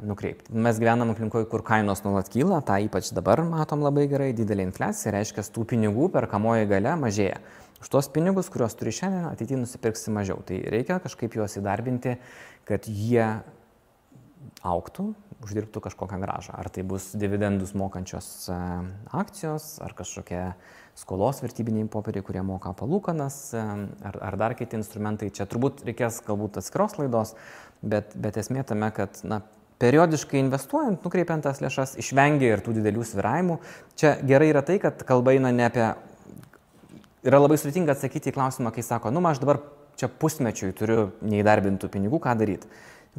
nukreipti. Mes gyvenam aplinkoje, kur kainos nuolat kyla, tą ypač dabar matom labai gerai, didelė infliacija, reiškia, tų pinigų perkamoji galia mažėja. Už tos pinigus, kuriuos turi šiandien, ateityje nusipirksi mažiau. Tai reikia kažkaip juos įdarbinti, kad jie augtų, uždirbtų kažkokią grąžą. Ar tai bus dividendus mokančios akcijos, ar kažkokie skolos vertybiniai popieriai, kurie moka palūkanas, ar dar kiti instrumentai. Čia turbūt reikės galbūt atskiros laidos, bet esmė tame, kad periodiškai investuojant, nukreipiant tas lėšas, išvengia ir tų didelių svyravimų. Čia gerai yra tai, kad kalba eina ne apie... Yra labai sudėtinga atsakyti į klausimą, kai sako, aš dabar čia pusmečiui turiu neįdarbintų pinigų, ką daryti.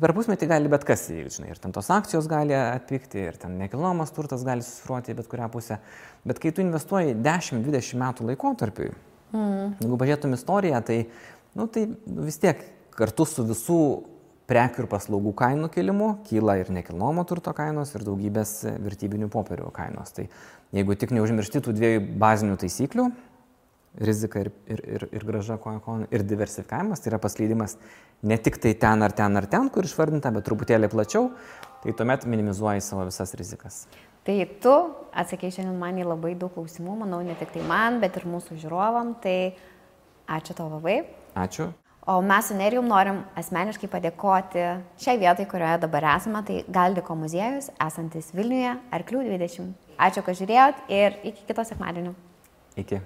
Per pusmetį gali bet kas įvykti, žinai, ir ten tos akcijos gali atpigti, ir ten nekilnojamas turtas gali susvyruoti į bet kurią pusę. Bet kai tu investuoji 10-20 metų laikotarpiui, jeigu pažiūrėtum istoriją, tai vis tiek kartu su visų prekių ir paslaugų kainų kilimu kyla ir nekilnojamo turto kainos, ir daugybės vertybinių popierių kainos. Tai jeigu tik neužmiršti tų dviejų bazinių taisyklių, rizika ir grąža ir diversifikavimas, tai yra paskleidimas ne tik tai ten ar ten, kur išvardinta, bet truputėlį plačiau, tai tuomet minimizuoji savo visas rizikas. Tai tu atsakei šiandien man į labai daug klausimų, manau, ne tik tai man, bet ir mūsų žiūrovam, tai ačiū tau labai. Ačiū. O mes su Nerijum norim asmeniškai padėkoti šiai vietai, kurioje dabar esame, tai Galdiko muziejus, esantis Vilniuje, Arklių 20. Ačiū, kad žiūrėjot ir iki kito sekmadienio. Iki.